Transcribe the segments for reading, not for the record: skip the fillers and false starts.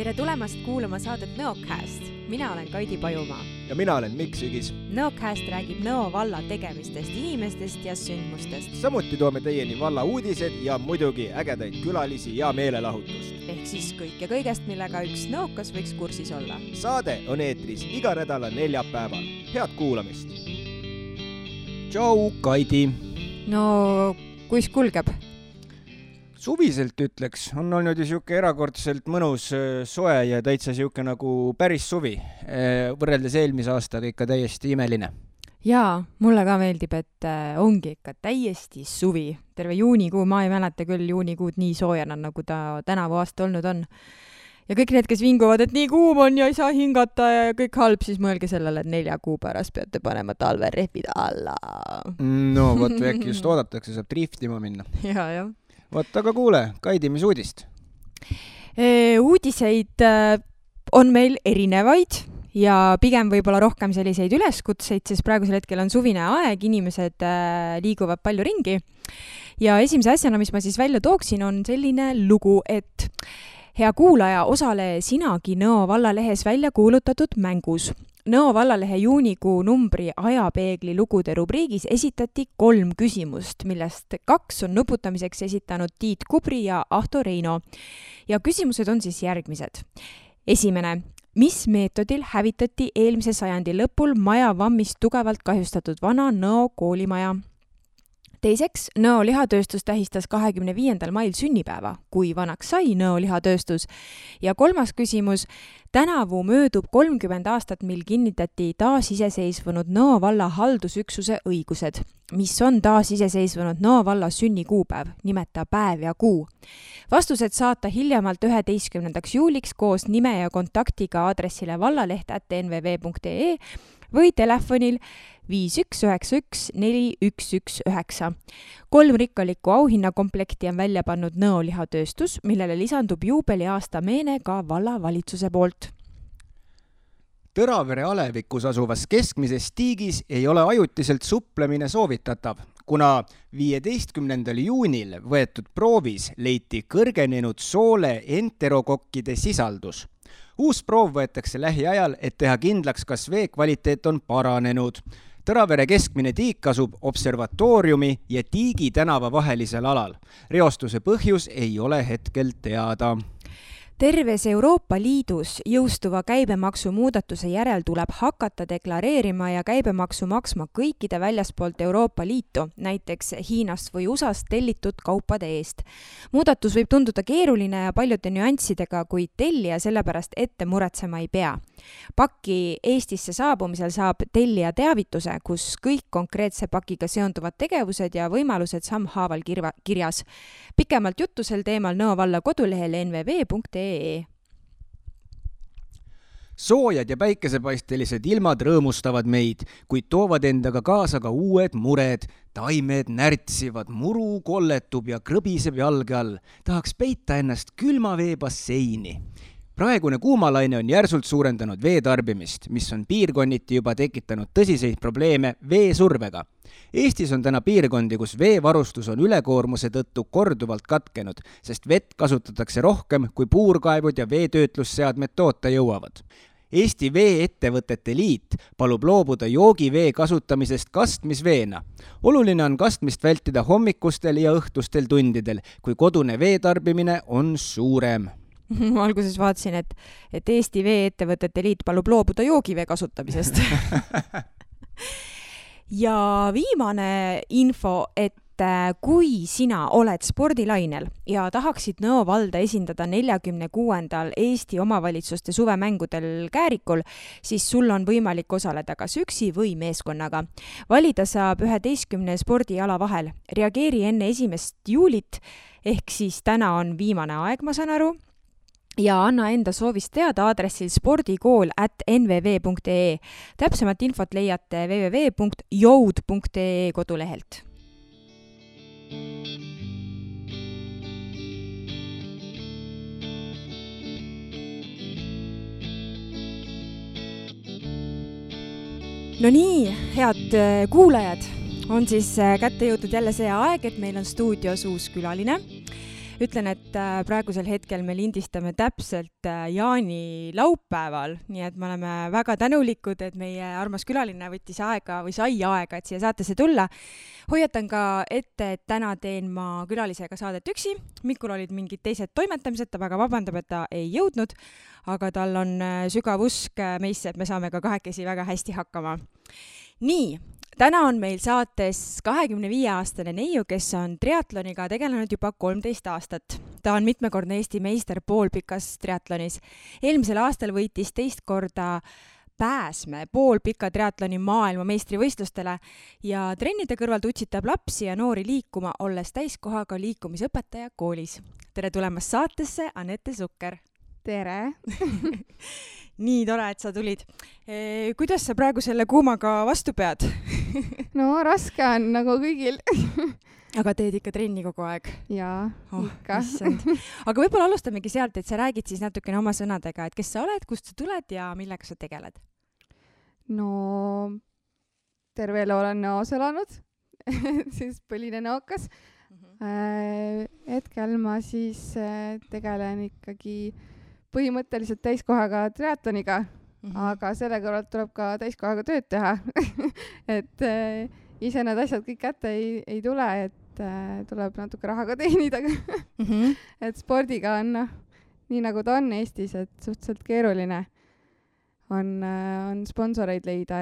Tere tulemast kuulama saadet Nõocast. Mina olen Kaidi Pajumaa. Ja mina olen Mikk Sügis. Nõocast räägib Nõo valla tegemistest, inimestest ja sündmustest. Samuti toome teieni valla uudised ja muidugi ägedaid külalisi ja meelelahutust. Ehk siis kõik ja kõigest, millega üks nõokas võiks kursis olla. Saade on eetris iga nädala neljapäeval. Head kuulamist! Tšau, Kaidi! No, kuis kulgeb? Suviselt ütleks, on olnud ju siuke erakordselt mõnus soe ja täitsa siuke nagu päris suvi. Võrreldes eelmise aastaga ikka täiesti imeline. Jaa, mulle ka meeldib, et ongi ikka täiesti suvi. Terve juunikuu, ma ei mäleta küll juunikuud nii soojana, nagu ta tänavu aasta olnud on. Ja kõik need, kes vinguvad, et nii kuum on ja ei saa hingata ja kõik halb, siis mõelge sellele, et 4 kuu pärast peate panema talverehvid alla. No, võt äkki just oodatakse, saab driftima minna. Jaa. Võt, aga kuule, Kaidi, mis uudist? Uudiseid on meil erinevaid ja pigem võib-olla rohkem selliseid üleskutseid, sest praegusel hetkel on suvine aeg, inimesed liiguvad palju ringi. Ja esimese asjana, mis ma siis välja tooksin, on selline lugu, et hea kuulaja, osale sinagi Nõo vallalehes välja kuulutatud mängus. Nõo vallalehe juunikuu numbri ajapeegli lugude rubriigis esitati 3 küsimust, millest 2 on nuputamiseks esitanud Tiit Kubri ja Ahto Reino. Ja küsimused on siis järgmised. Esimene. Mis meetodil hävitati eelmise sajandi lõpul maja vammist tugevalt kahjustatud vana Nõo koolimaja? Teiseks, Nõo lihatööstus tähistas 25. mail sünnipäeva, kui vanaks sai Nõo lihatööstus. Ja 3. küsimus, tänavu möödub 30 aastat, mil kinnitati taasiseseisvunud Nõo valla haldusüksuse õigused. Mis on taasiseseisvunud Nõo valla sünnikuupäev, nimeta päev ja kuu. Vastused saata hiljemalt 11. juuliks koos nime ja kontaktiga aadressile vallaleht@nvv.ee või telefonil 5191 4119. 3 rikkalikku auhinnakomplekti on välja pannud Nõo lihatööstus, millele lisandub juubeliaasta meene ka vallavalitsuse poolt. Tõravere alevikus asuvas keskmises tiigis ei ole ajutiselt suplemine soovitatav, kuna 15. juunil võetud proovis leiti kõrgenenud soole enterokokkide sisaldus. Uus proov võetakse lähiajal, et teha kindlaks, kas vee kvaliteet on paranenud. Tõravere keskmine tiik asub observatooriumi ja Tiigi tänava vahelisel alal. Reostuse põhjus ei ole hetkel teada. Terves Euroopa Liidus jõustuva käibemaksu muudatuse järel tuleb hakata deklareerima ja käibemaksu maksma kõikide väljaspoolt Euroopa Liitu, näiteks Hiinast või USAst tellitud kaupade eest. Muudatus võib tunduda keeruline ja paljude nüanssidega, kuid tellija sellepärast ette muretsema ei pea. Paki Eestisse saabumisel saab tellija teavituse, kus kõik konkreetse pakiga seonduvad tegevused ja võimalused sammhaaval kirjas. Pikemalt juttu sel teemal Nõo valla kodulehel nvv.ee. Soojad ja päikesepaistelised ilmad rõõmustavad meid, kuid toovad endaga kaasa ka uued mured. Taimed närtsivad, muru kolletub ja krõbiseb jalge all. Tahaks peita ennast külma veebasseini. Praegune kuumalaine on järsult suurendanud veetarbimist, mis on piirkonniti juba tekitanud tõsiseid probleeme veesurvega. Eestis on täna piirkondi, kus veevarustus on ülekoormuse tõttu korduvalt katkenud, sest vett kasutatakse rohkem, kui puurkaevud ja veetöötlusseadmed toota jõuavad. Eesti Vee-ettevõtete Liit palub loobuda joogivee kasutamisest kastmisveena. Oluline on kastmist vältida hommikustel ja õhtustel tundidel, kui kodune veetarbimine on suurem. Ma alguses vaatasin, et Eesti Vee-ettevõtete Liit palub loobuda joogivee kasutamisest. Ja viimane info, et kui sina oled spordilainel ja tahaksid Nõo valda esindada 46. Eesti omavalitsuste suvemängudel Käärikul, siis sul on võimalik osaleda kas üksi või meeskonnaga. Valida saab 11 spordiala vahel. Reageeri enne 1. juulit, ehk siis täna on viimane aeg, ma saan aru. Ja anna enda soovist teada aadressil spordikool@nvv.ee. Täpsemat infot leiate www.joud.ee kodulehelt. No nii, head kuulajad, on siis kätte jõudnud jälle see aeg, et meil on stuudios uus külaline. Ütlen, et praegusel hetkel me lindistame täpselt jaanilaupäeval, nii et me oleme väga tänulikud, et meie armas külaline võttis aega või sai aega, et siia saatesse tulla. Hoiatan ka ette, et täna teen ma külalisega saadet üksi. Mikul olid mingid teised toimetamised, ta väga vabandab, et ta ei jõudnud, aga tal on sügav usk meisse, et me saame ka kahekesi väga hästi hakkama. Nii. Täna on meil saates 25-aastane neiu, kes on triatloniga tegelenud juba 13 aastat. Ta on mitmekordne Eesti meister poolpikas triatlonis. Eelmisel aastal võitis teist korda Pääsme poolpika triatloni maailma meistrivõistlustele ja trennide kõrvalt utsitab lapsi ja noori liikuma, olles täiskohaga liikumisõpetaja koolis. Tere tulemast saatesse, Anette Sukker! Tere! Nii tore, et sa tulid. Kuidas sa praegu selle kuumaga vastu pead? No raske on nagu kõigil. Aga teed ikka trenni kogu aeg? Jaa, ikka. Aga võib-olla alustamegi sealt, et sa räägid siis natukene oma sõnadega, et kes sa oled, kust sa tuled ja millega sa tegeled? No terve elu olen Nõos elanud, siis põline Nõokas. Hetkel ma siis tegelen ikkagi põhimõtteliselt täiskohaga triatloniga, aga selle kõrvalt tuleb ka täiskohaga tööd teha. Et ise need asjad kõik kätte ei tule, et tuleb natuke raha ka teenida. Et spordiga on, nii nagu ta on Eestis, et suhteliselt keeruline on sponsoreid leida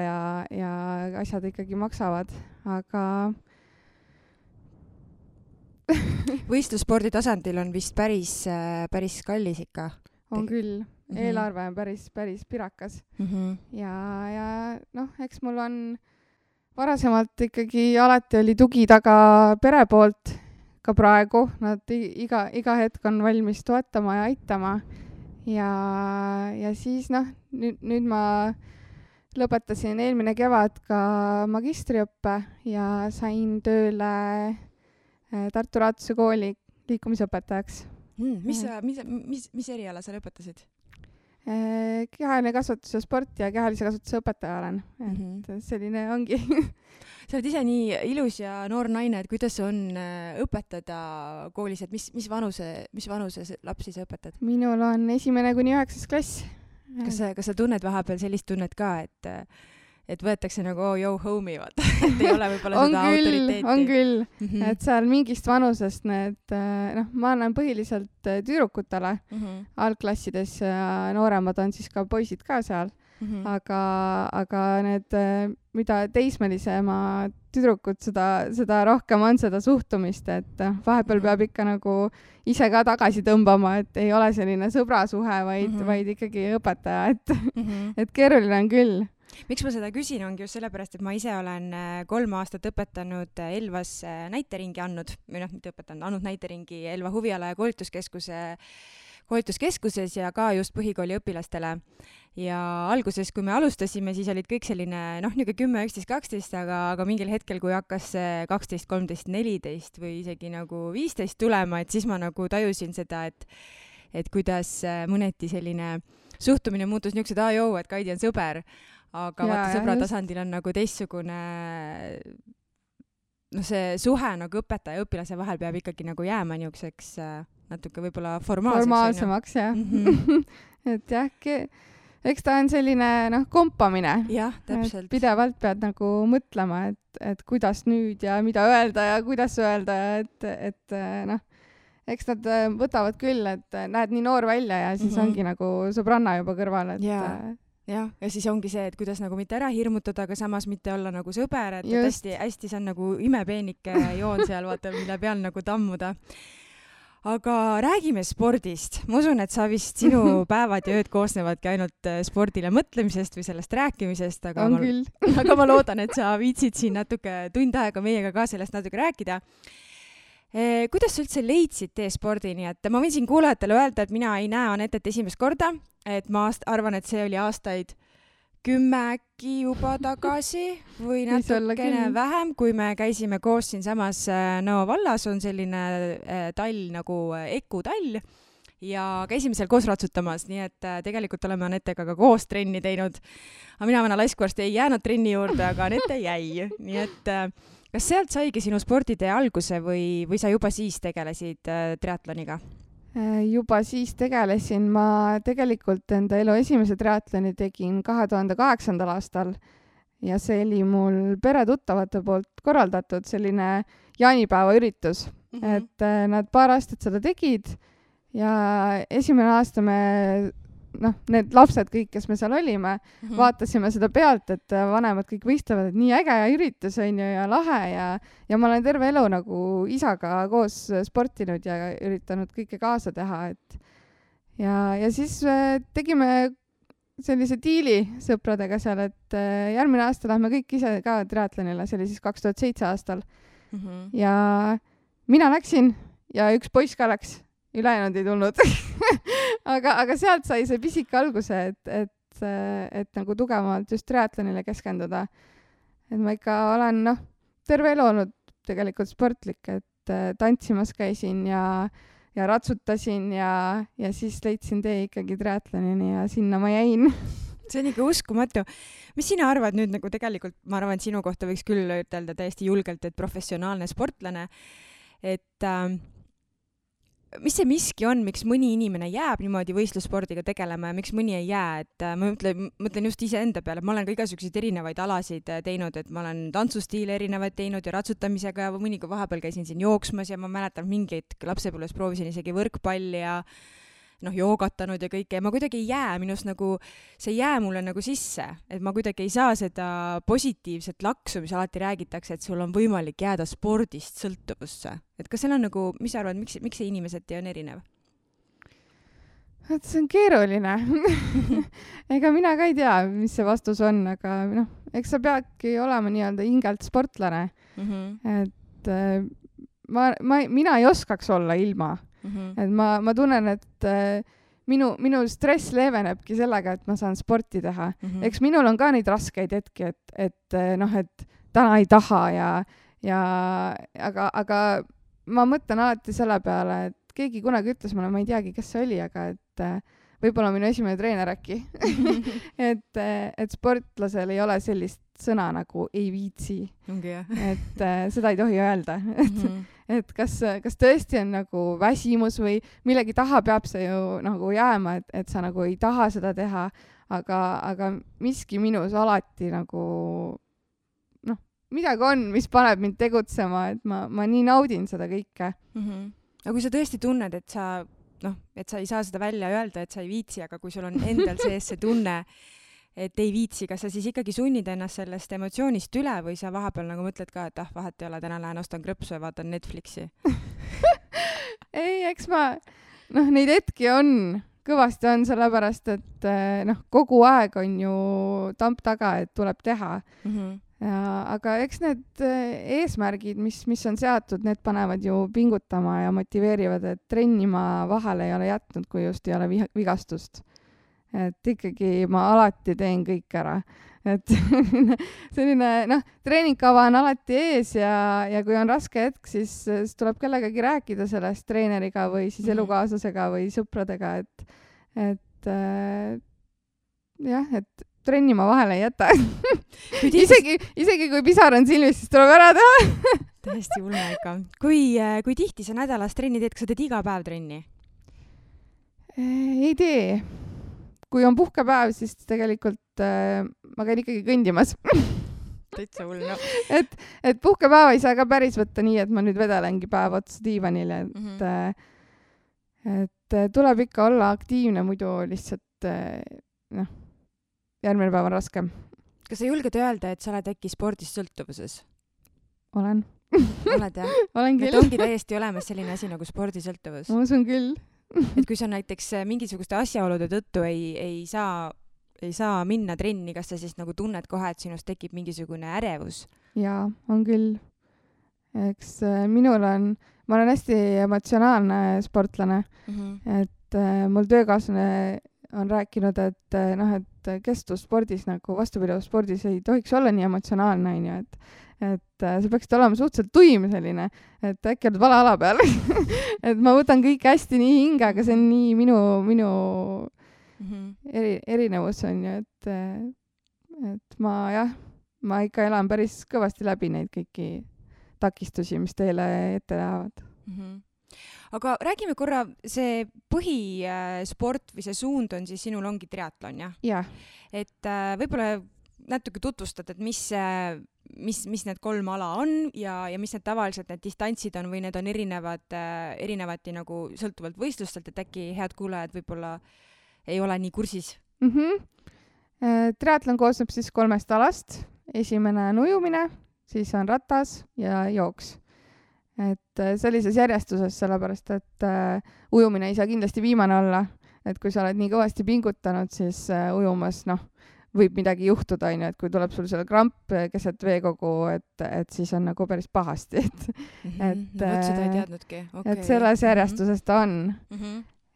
ja asjad ikkagi maksavad, aga võistlusspordi tasandil on vist päris kallis ikka. On küll. Eelarve on päris pirakas. Ja eks mul on varasemalt ikkagi alati oli tugi taga pere poolt ka praegu. Nad iga hetk on valmis toetama ja aitama. Ja siis nüüd ma lõpetasin eelmine kevad ka magistriõppe ja sain tööle Tartu Raatuse kooli liikumisõpetajaks. Mis eriala sa lõpetasid? Kehaline kasvatus ja sport ja kehalise kasvatuse õpetaja olen. Et selline ongi. Sa oled ise nii ilus ja noor naine, et kuidas on õpetada koolis, et mis vanuse lapsi sa õpetad? Minul on 1.–9. klass. Kas sa tunned vahepeal sellist tunnet ka, et võetakse nagu yo homie, vaata, et ei ole võib-olla seda autoriteeti? On küll, et seal mingist vanusest ma annan põhiliselt tüdrukutele algklassides ja nooremad on siis ka poisid ka seal, aga need, mida teismelisema tüdrukud, seda rohkem on seda suhtumist, et vahepeal peab ikka nagu ise ka tagasi tõmbama, et ei ole selline sõbrasuhe, vaid ikkagi õpetaja, et keeruline on küll. Miks ma seda küsin, ongi just sellepärast, et ma ise olen 3 aastat õpetanud Elvas näiteringi andnud näiteringi Elva huviala- ja koolituskeskuses ja ka just põhikooli õpilastele. Ja alguses, kui me alustasime, siis olid kõik selline, niisugune 10, 11, 12, aga mingil hetkel, kui hakkas 12, 13, 14 või isegi nagu 15 tulema, et siis ma nagu tajusin seda, et kuidas mõneti selline suhtumine muutus niisugused, et Kaidi on sõber. Aga vaata, sõbra tasandil on nagu teistsugune, see suhe nagu õpetaja ja õpilase vahel peab ikkagi nagu jääma niisuguseks natuke võib-olla formaalsemaks, jah. Et jah, eks ta on selline kompamine. Jah, täpselt. Pidevalt pead nagu mõtlema, et kuidas nüüd ja mida öelda ja kuidas öelda, et eks nad võtavad küll, et näed nii noor välja ja siis ongi nagu sõbranna juba kõrval, et ja siis ongi see, et kuidas nagu mitte ära hirmutada, aga samas mitte olla nagu sõber, et hästi see on nagu imepeenike joon seal, vaata, mille peal nagu tammuda. Aga räägime spordist. Ma usun, et sinu päevad ja ööd koosnevadki ainult spordile mõtlemisest või sellest rääkimisest, aga ma loodan, et sa viitsid siin natuke tund aega meiega ka sellest natuke rääkida. Kuidas sa üldse leidsid tee spordini? Et ma võin siin kuulajatele öelda, et mina ei näe Anettet esimest korda, et ma arvan, et see oli aastaid 10 äkki juba tagasi või natukene vähem, kui me käisime koos siin samas Nõo vallas, on selline tall nagu Eku tall ja käisime seal koos ratsutamas, nii et tegelikult oleme Anettega ka koos trenni teinud. Aga mina vana laiskuarst ei jäänud trenni juurde, aga Anette jäi, nii et kas sealt saigi sinu sporditee alguse või sa juba siis tegelesid triatloniga? Juba siis tegelesin. Ma tegelikult enda elu esimese triatloni tegin 2008. aastal ja see oli mul peretuttavate poolt korraldatud selline jaanipäeva üritus. Et nad paar aastat seda tegid ja esimene aasta me need lapsed kõik, kes me seal olime, vaatasime seda pealt, et vanemad kõik võistlevad, et nii äge üritus on ju ja lahe ja ma olen terve elu nagu isaga koos sportinud ja üritanud kõike kaasa teha, et ja siis tegime sellise diili sõpradega seal, et järgmine aasta lähme kõik ise ka triatlonile, see oli siis 2007 aastal. Ja mina läksin ja üks poiss ka läks. Ülejäänud ei tulnud. aga sealt sai see pisik alguse, et nagu tugevamalt just triatlonile keskenduda. Et ma ikka olen, terve elu olnud tegelikult sportlik, et tantsimas käisin ja ratsutasin ja siis leidsin tee ikkagi triatlonini ja sinna ma jäin. See on ikka uskumatu. Mis sina arvad nüüd nagu tegelikult, ma arvan, et sinu kohta võiks küll ütelda täiesti julgelt, et professionaalne sportlane, et mis see miski on, miks mõni inimene jääb niimoodi võistlusspordiga tegelema ja miks mõni ei jää, et ma mõtlen just iseenda peale, ma olen ka igasuguseid erinevaid alasid teinud, et ma olen tantsustiile erinevaid teinud ja ratsutamisega ja mõnikord vahepeal käisin siin jooksmas ja ma mäletan mingeid lapsepõlves proovisin isegi võrkpalli ja joogatanud ja kõike ja ma kuidagi ei jää, minust nagu see ei jää mulle nagu sisse, et ma kuidagi ei saa seda positiivset laksu, mis alati räägitakse, et sul on võimalik jääda spordist sõltuvusse. Et kas seal on nagu, mis sa arvad, miks see inimeseti on erinev? See on keeruline. Ega mina ka ei tea, mis see vastus on, aga eks sa peadki olema nii-öelda hingelt sportlane. Et mina ei oskaks olla ilma. Et ma tunnen, et minu stress leevenebki sellega, et ma saan sporti teha. Eks minul on ka neid raskeid hetki, et täna ei taha aga ma mõtlen alati selle peale, et keegi kunagi ütles mulle, ma ei teagi, kes see oli, aga et võib-olla minu esimene treener äkki, et sportlasel ei ole sellist sõna nagu ei viitsi. Et seda ei tohi öelda. Et kas tõesti on nagu väsimus või millegi taha peab see ju nagu jääma, et sa nagu ei taha seda teha, aga miski minus alati nagu midagi on, mis paneb mind tegutsema, et ma nii naudin seda kõike. Aga kui sa tõesti tunned, et sa ei saa seda välja öelda, et sa ei viitsi, aga kui sul on endal sees see tunne, et ei viitsi, kas sa siis ikkagi sunnid ennast sellest emotsioonist üle või sa vahepeal nagu mõtled ka, et vahet ei ole, täna lähen ostan krõpsu ja vaatan Netflixi? Ei, eks neid hetki on, kõvasti on, sellepärast, et kogu aeg on ju tamp taga, et tuleb teha. Aga eks need eesmärgid, mis on seatud, need panevad ju pingutama ja motiveerivad, et trenni ma vahele ei ole jätnud, kui just ei ole vigastust. Et ikkagi ma alati teen kõik ära. Et selline, treeningkava on alati ees ja kui on raske hetk, siis tuleb kellegagi rääkida sellest treeneriga või siis elukaaslasega või sõpradega, et trenni ma vahele ei jäta. isegi kui pisar on silmis, siis tuleb ära teha. Täiesti hulle ikka. Kui tihti sa nädalas trenni teed, kas sa teed iga päev trenni? Ei tee. Kui on puhkepäev, siis tegelikult ma käin ikkagi kõndimas. Täitsa hull, Et puhkepäeva ei saa ka päris võtta nii, et ma nüüd vedelengi päev otsa diivanile. Et tuleb ikka olla aktiivne, muidu lihtsalt järgmine päev on raskem. Kas sa julged öelda, et sa oled äkki spordist sõltuvuses? Olen. Oled, jah? Olen küll. Et ongi täiesti olemas selline asi nagu spordisõltuvus? Ma usun küll. Et kui sa näiteks mingisuguste asjaolude tõttu ei saa minna trenni, kas sa siis nagu tunned kohe, et sinust tekib mingisugune ärevus? Jaa, on küll. Eks ma olen hästi emotsionaalne sportlane, et mul töökaaslane on rääkinud, et kestvusspordis nagu vastupidavusspordis ei tohiks olla nii emotsionaalne, et sa peaksid olema suhteliselt tuim selline, et äkki oled vale ala peal. Et ma võtan kõik hästi nii hinge, aga see on nii minu erinevus on ju, et ma ikka elan päris kõvasti läbi neid kõiki takistusi, mis teile ette lähevad. Aga räägime korra, see põhisport või see suund on siis sinul ongi triatlon, jah? Jah. Et võib-olla natuke tutvustad, et mis need 3 ala on ja mis need tavaliselt need distantsid on või need on erinevati nagu sõltuvalt võistlustelt, et äkki head kuulajad võib-olla ei ole nii kursis. Triatlon koosneb siis 3 alast. Esimene on ujumine, siis on ratas ja jooks. Et sellises järjestuses, sellepärast, et ujumine ei saa kindlasti viimane olla. Et kui sa oled nii kõvasti pingutanud, siis ujumas, võib midagi juhtuda, et kui tuleb sul selle kramp keset veekogu, et siis on nagu päris pahasti. Seda ei teadnudki. Okay. Et selles järjestuses ta on.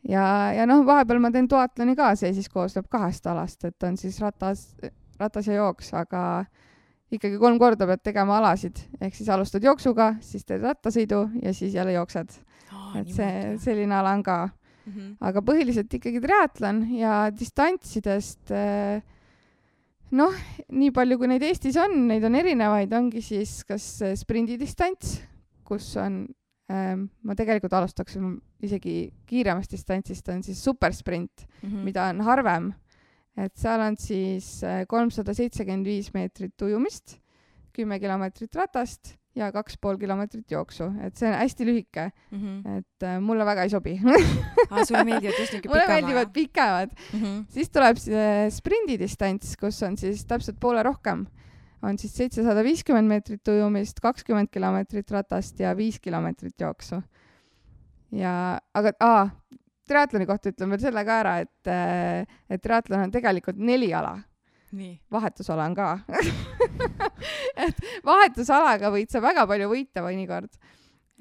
Ja vahepeal ma teen duatloni ka, see siis koosneb 2 alast, et on siis ratas ja jooks, aga ikkagi 3 korda pead tegema alasid, ehk siis alustad jooksuga, siis teed rattasõidu ja siis jälle jooksed. Et selline ala on ka. Aga põhiliselt ikkagi triatlon ja distantsidest, nii palju kui neid Eestis on, neid on erinevaid, ongi siis kas sprindidistants, kus on, ma tegelikult alustaks isegi kiiremast distantsist, on siis supersprint, mida on harvem. Et seal on siis 375 meetrit ujumist, 10 kilomeetrit ratast ja 2,5 kilomeetrit jooksu. Et see on hästi lühike. Et mulle väga ei sobi. Sulle meeldivad just niisugune pikema? Mulle meeldivad pikemad. Siis tuleb sprindidistants, kus on siis täpselt poole rohkem. On siis 750 meetrit ujumist, 20 kilomeetrit ratast ja 5 kilomeetrit jooksu. Aga triatloni kohta ütlen veel selle ka ära, et triatlon on tegelikult 4 ala. Nii. Vahetusala on ka. Et vahetusalaga võid sa väga palju võita mõnikord.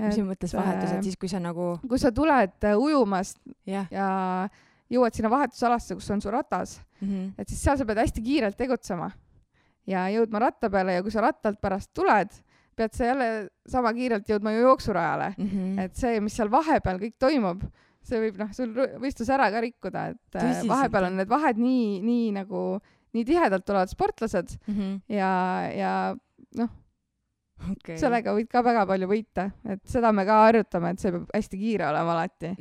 Mis mõttes vahetus, et siis kui sa nagu... Kui sa tuled ujumast ja jõuad sinna vahetusalasse, kus on su ratas, et siis seal sa pead hästi kiirelt tegutsema ja jõudma ratta peale ja kui sa rattalt pärast tuled, pead sa jälle sama kiirelt jõudma ju jooksurajale. Et see, mis seal vahepeal kõik toimub, see võib sul võistlus ära ka rikkuda, et vahepeal on need vahed nii tihedalt tulevad sportlased ja sellega võid ka väga palju võita, et seda me ka harjutame, et see peab hästi kiire olema alati.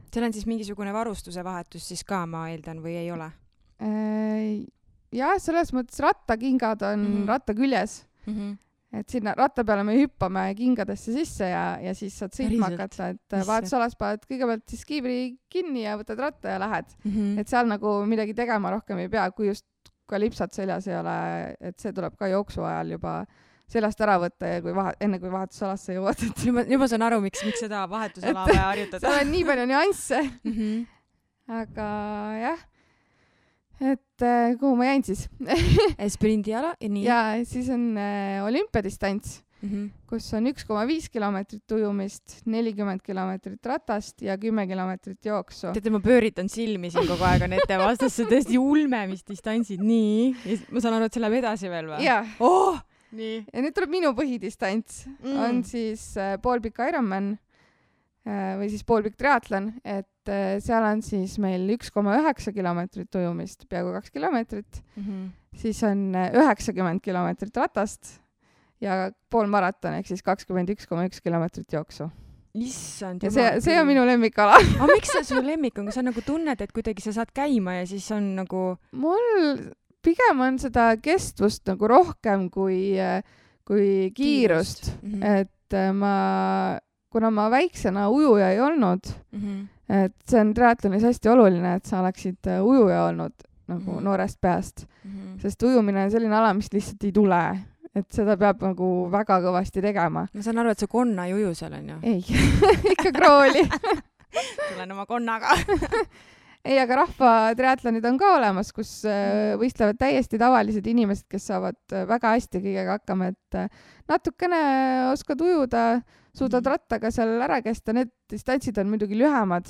Seal on siis mingisugune varustuse vahetus siis ka, ma eeldan, või ei ole? Jah, selles mõttes rattakingad on ratta küljes. Et sinna ratta peale me hüppame kingadesse sisse ja siis saad sõitma hakata, et vahetusalas paned kõigepealt siis kiivri kinni ja võtad ratta ja lähed. Et seal nagu midagi tegema rohkem ei pea, kui just ka lipsad seljas ei ole, et see tuleb ka jooksu ajal juba seljast ära võtta ja enne kui vahetusalasse jõuad. Juba saan aru, miks seda vahetusala vaja harjutada. Seal on nii palju nüansse. Aga jah. Et kuhu ma jäin siis? Sprindiala ja nii? Ja siis on olümpiadistants, kus on 1,5 kilomeetrit ujumist, 40 kilomeetrit ratast ja 10 kilomeetrit jooksu. Teate, ma pööritan silmi siin kogu aeg on ette vastasse tõesti ulme, mis distantsid. Nii. Ja ma saan aru, et see läheb edasi veel või? Jah. Nii. Ja nüüd tuleb minu põhidistants. On siis poolpikk Ironman või siis poolpikk triatlon, et seal on siis meil 1,9 kilomeetrit ujumist, peaaegu 2 kilomeetrit. Siis on 90 kilomeetrit ratast ja pool maraton, ehk siis 21,1 kilomeetrit jooksu. Issand. Ja see on minu lemmikala. Aga miks see su lemmik on? Kas sa nagu tunned, et kuidagi sa saad käima ja siis on nagu... Mul pigem on seda kestvust nagu rohkem kui kiirust. Et kuna ma väiksena ujuja ei olnud, et see on triatlonis hästi oluline, et sa oleksid ujuja olnud nagu noorest peast, sest ujumine on selline ala, mis lihtsalt ei tule, et seda peab nagu väga kõvasti tegema. Ma saan aru, et sa konna ei uju seal on ju? Ei, ikka krooli. Tulen oma konnaga. Ei, aga rahva triatlonid on ka olemas, kus võistlevad täiesti tavalised inimesed, kes saavad väga hästi kõigega hakkama, et natukene oskad ujuda, suudad rattaga seal ära kesta, need distantsid on muidugi lühemad,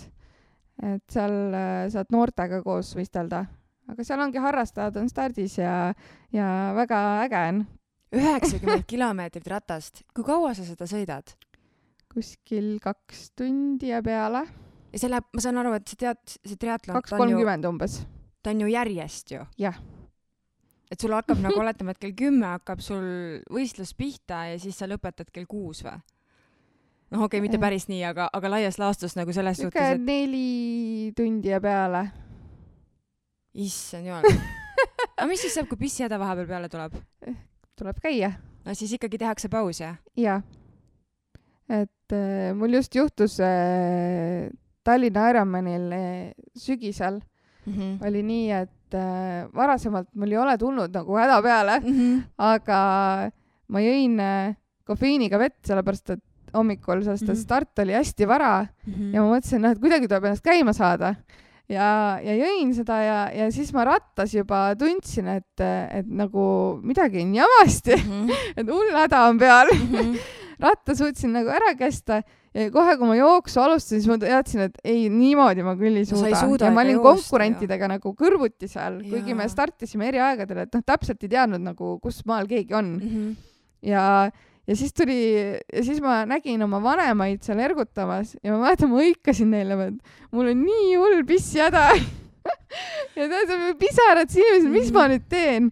et seal saad noortega koos võistelda. Aga seal ongi harrastajad on stardis ja väga äge on. 90 kilomeetrit ratast. Kui kaua sa seda sõidad? Kuskil 2 tundi ja peale. Ja see läheb, ma saan aru, et see triatlon... 2.30 umbes. Ta on ju järjest ju. Jah. et sul hakkab nagu oletama, et kell 10 hakkab sul võistlus pihta ja siis sa lõpetad kell 6 või? Noh, okei, mitte päris nii, aga laias laastus nagu selles suhtes, et 4 tundi ja peale. Issand jumal. Aga mis siis saab, kui pissihäda vahepeal peale tuleb? Tuleb käia. No siis ikkagi tehakse paus, jah? Jaa. Et mul just juhtus Tallinna Ironmanil sügisel oli nii, et varasemalt mul ei ole tulnud nagu häda peale, aga ma jõin kofeiiniga vett, sellepärast et hommikul, sest start oli hästi vara ja ma mõtlesin, et kuidagi tuleb ennast käima saada. Ja jõin seda ja siis ma rattas juba tundsin, et nagu midagi on jamasti, et hull häda on peal. Ratta suutsin nagu ära kesta ja kohe, kui ma jooksu alustasin, siis ma teadsin, et ei, niimoodi ma küll ei suuda. Ja ma olin konkurentidega nagu kõrvuti seal, kuigi me startisime eri aegadel, et täpselt ei teadnud nagu, kus maal keegi on. Ja siis ma nägin oma vanemaid seal ergutamas ja ma mäletan, ma hõikasin neile, et mul on nii hull pissihäda. Ja pisarad inimesed, mis ma nüüd teen?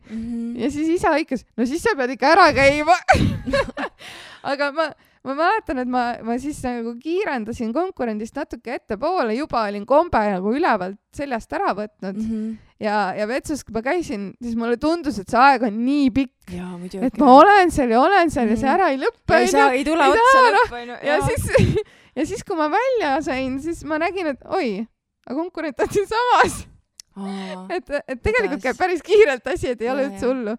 Ja siis isa hõikas, no siis sa pead ikka ära käima. Aga ma mäletan, et ma siis nagu kiirendasin konkurendist natuke ettepoole, juba olin kombe nagu ülevalt seljast ära võtnud. Ja vetsus, kui ma käisin, siis mulle tundus, et see aeg on nii pikk, et ma olen seal ja see ära ei lõppe. Ei tule otsa lõppu. Ja siis, kui ma välja sain, siis ma nägin, et oi, aga konkurent on siin samas. Et tegelikult käib päris kiirelt asi, et ei ole üldse hullu.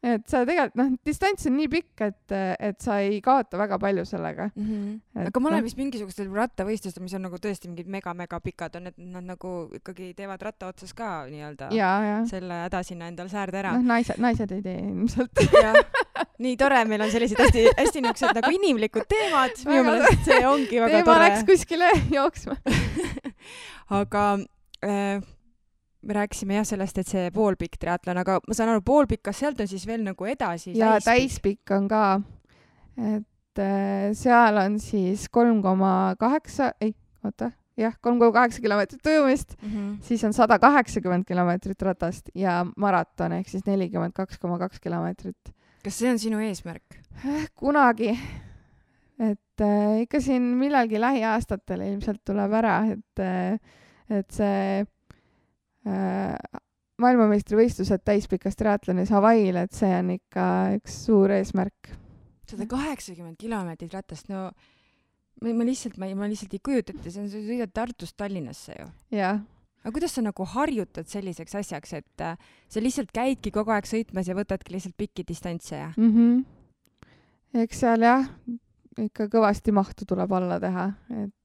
Et sa tegelikult, distants on nii pikk, et sa ei kaota väga palju sellega. Aga ma olen vist mingisugustel rattavõistlustel, mis on nagu tõesti mingid mega pikad, on, et nad nagu ikkagi teevad ratta otsas ka nii-öelda selle häda sinna endal säärde ära. Naised ei tee ilmselt. Nii tore, meil on sellised hästi niisugused nagu inimlikud teemad. Minu meelest see ongi väga tore. Teema läks kuskile jooksma. Aga me rääkisime sellest, et see poolpikk triatlon, aga ma saan aru, poolpikk, kas sealt on siis veel nagu edasi? Ja täispikk on ka, et seal on siis 3,8 kilomeetrit ujumist, siis on 180 kilomeetrit ratast ja maraton ehk siis 42,2 kilomeetrit. Kas see on sinu eesmärk? Kunagi. Et ikka siin millalgi lähiaastatel ilmselt tuleb ära, et see maailmameistrivõistlused täispikas triatlonis Hawaii'l, et see on ikka üks suur eesmärk. 180 kilomeetrit ratast, no ma lihtsalt ei kujuta ette, see on sõidad Tartust Tallinnasse ju. Jah. Aga kuidas sa nagu harjutad selliseks asjaks, et sa lihtsalt käidki kogu aeg sõitmas ja võtadki lihtsalt pikki distantse ja? Eks seal jah, ikka kõvasti mahtu tuleb alla teha, et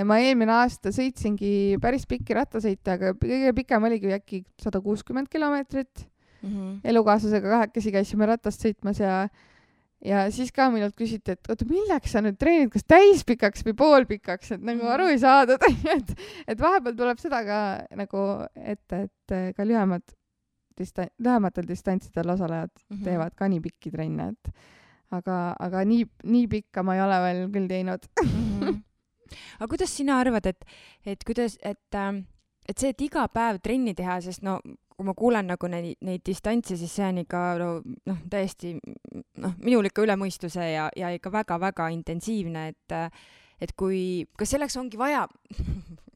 ma eelmine aasta sõitsingi päris pikki rattasõite, aga kõige pikem oligi äkki 160 kilomeetrit. Elukaaslasega kahekesi käisime ratast sõitmas ja siis ka minult küsiti, et oota, milleks sa nüüd treenid, kas täispikaks või poolpikaks, et nagu aru ei saadud. Et vahepeal tuleb seda ka nagu ette, et ka lühematel distantsidel osalejad teevad ka nii pikki trenne, aga nii pikka ma ei ole veel küll teinud. Aga kuidas sina arvad, et see, et iga päev trenni teha, sest kui ma kuulen nagu neid distantse, siis see on ikka täiesti minul ikka üle mõistuse ja ikka väga-väga intensiivne, et kas selleks ongi vaja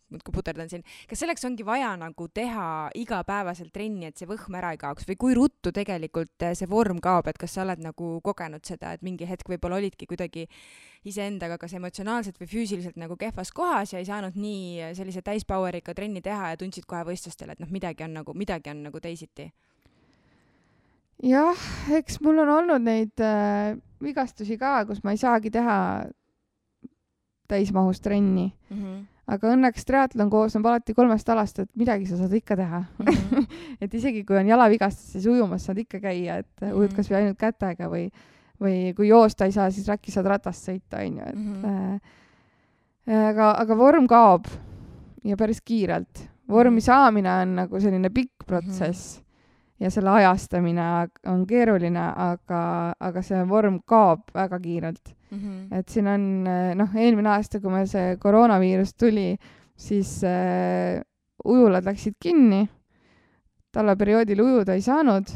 muudkui puterdan siin, kas selleks ongi vaja nagu teha igapäevaselt trenni, et see võhm ära ei kaoks või kui ruttu tegelikult see vorm kaob, et kas sa oled nagu kogenud seda, et mingi hetk võib-olla olidki kuidagi iseendaga kas emotsionaalselt või füüsiliselt nagu kehvas kohas ja ei saanud nii sellise täispoweriga trenni teha ja tundsid kohe võistlustel, et midagi on nagu teisiti? Jah, eks mul on olnud neid vigastusi ka, kus ma ei saagi teha täismahus trenni. Aga õnneks triatlon koosneb alati 3 alast, et midagi sa saad ikka teha. Et isegi kui on jalavigastus, siis ujumas saad ikka käia, et ujud kas või ainult kätega või kui joosta ei saa, siis räkki saad ratast sõita. Aga vorm kaob ja päris kiirelt. Vormi saamine on nagu selline pikk protsess ja selle ajastamine on keeruline, aga see vorm kaob väga kiirelt. Et siin on, eelmine aasta, kui meil see koroonaviirus tuli, siis ujulad läksid kinni, talveperioodil ujuda ei saanud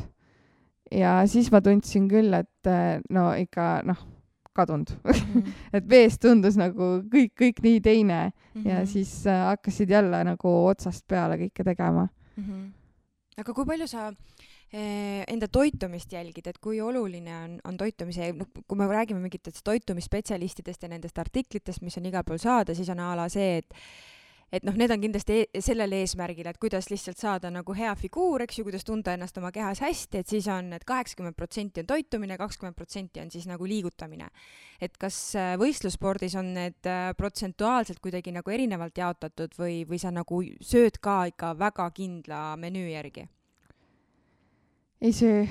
ja siis ma tundsin küll, et no ikka kadunud et veest tundus nagu kõik nii teine ja siis hakkasid jälle nagu otsast peale kõike tegema. Aga kui palju sa enda toitumist jälgid, et kui oluline on toitumise, kui me räägime mingitest toitumisspetsialistidest ja nendest artiklitest, mis on igal pool saada, siis on a la see, et need on kindlasti sellel eesmärgil, et kuidas lihtsalt saada nagu hea figuur, eks ju, kuidas tunda ennast oma kehas hästi, et siis on, et 80% on toitumine, 20% on siis nagu liigutamine. Et kas võistlusspordis on need protsentuaalselt kuidagi nagu erinevalt jaotatud või sa nagu sööd ka ikka väga kindla menüü järgi? Ei söö.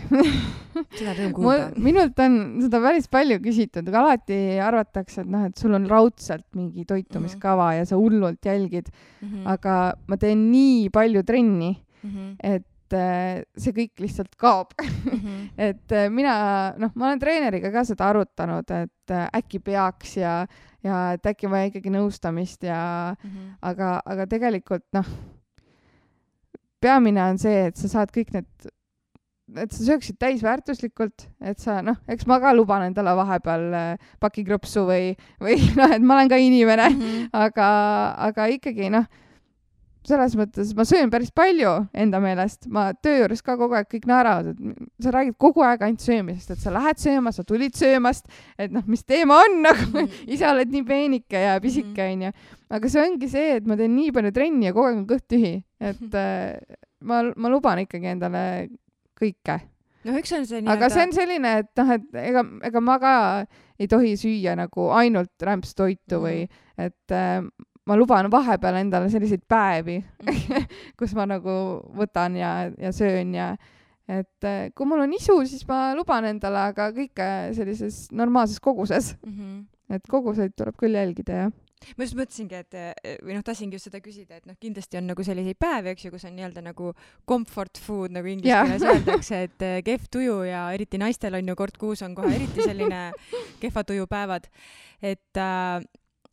Seda rõõm kuulda. Minult on seda päris palju küsitud, aga alati arvatakse, et sul on raudselt mingi toitumiskava ja sa hullult jälgid. Aga ma teen nii palju trenni, et see kõik lihtsalt kaob. Et ma olen treeneriga ka seda arutanud, et äkki peaks ja et äkki vaja ikkagi nõustamist aga tegelikult peamine on see, et sa saad kõik et sa sööksid täisväärtuslikult, et sa, eks ma ka luban endale vahepeal pakikropsu või et ma olen ka inimene, aga ikkagi, selles mõttes ma söön päris palju enda meelest, ma töö juures ka kogu aeg kõik naeravad, et sa räägid kogu aeg ainult söömisest, et sa lähed sööma, sa tulid söömast, et mis teema on, ise oled nii peenike ja pisike, onju. Aga see ongi see, et ma teen nii palju trenni ja kogu aeg on kõht tühi, et ma luban ikkagi endale kõike. Eks on see aga see on selline, et ega ma ka ei tohi süüa nagu ainult rämpstoitu või et ma luban vahepeal endale selliseid päevi, kus ma nagu võtan ja söön ja et kui mul on isu, siis ma luban endale, aga kõike sellises normaalses koguses. Et koguseid tuleb küll jälgida, jah. Ma just mõtlesingi, tahtsingi just seda küsida, et kindlasti on nagu selliseid päevi, eks ju, kus on nii-öelda nagu comfort food, nagu inglise keeles öeldakse, et kehv tuju ja eriti naistel on ju kord kuus on kohe eriti selline kehva tuju päevad. Et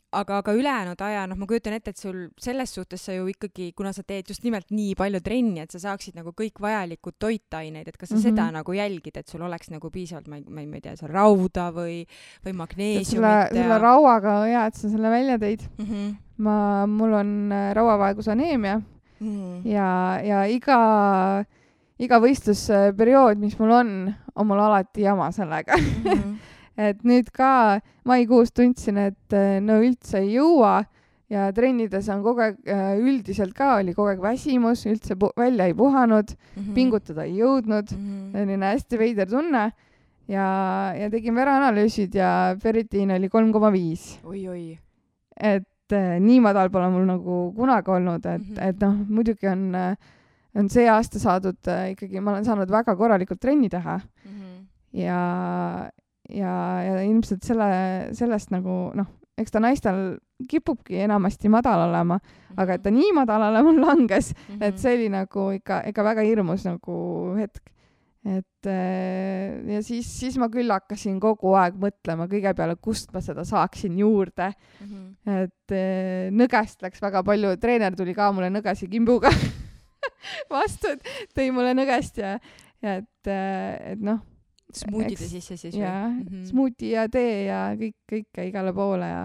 aga ülejäänud aja, ma kujutan ette, et sul selles suhtes sa ju ikkagi, kuna sa teed just nimelt nii palju trenni, et sa saaksid nagu kõik vajalikud toitaineid, et kas sa seda nagu jälgid, et sul oleks nagu piisavalt, ma ei tea, rauda või magneesiumit. Selle rauaga on hea, et sa selle välja tõid. Mul on rauavaegusaneemia ja iga võistlusperiood, mis mul on mul alati jama sellega. Et nüüd ka maikuus tundsin, et üldse ei jõua ja trennides on kogu aeg, üldiselt ka oli kogu aeg väsimus, üldse välja ei puhanud, pingutada ei jõudnud, selline hästi veider tunne ja tegin vereanalüüsid ja ferritiin oli 3,5. Oi. Et nii madal pole mul nagu kunagi olnud, et muidugi on see aasta saadud ikkagi, ma olen saanud väga korralikult trenni teha ja ilmselt sellest nagu, eks ta naistel kipubki enamasti madal olema, aga et ta nii madalale mul langes, et see oli nagu ikka väga hirmus nagu hetk. Et ja siis ma küll hakkasin kogu aeg mõtlema kõige peale, kust ma seda saaksin juurde. Et nõgest läks väga palju, treener tuli ka mulle nõgesi kimbuga vastu, et tõi mulle nõgest ja et smuutide sisse siis või? Jaa, smuuti ja tee ja kõike igale poole ja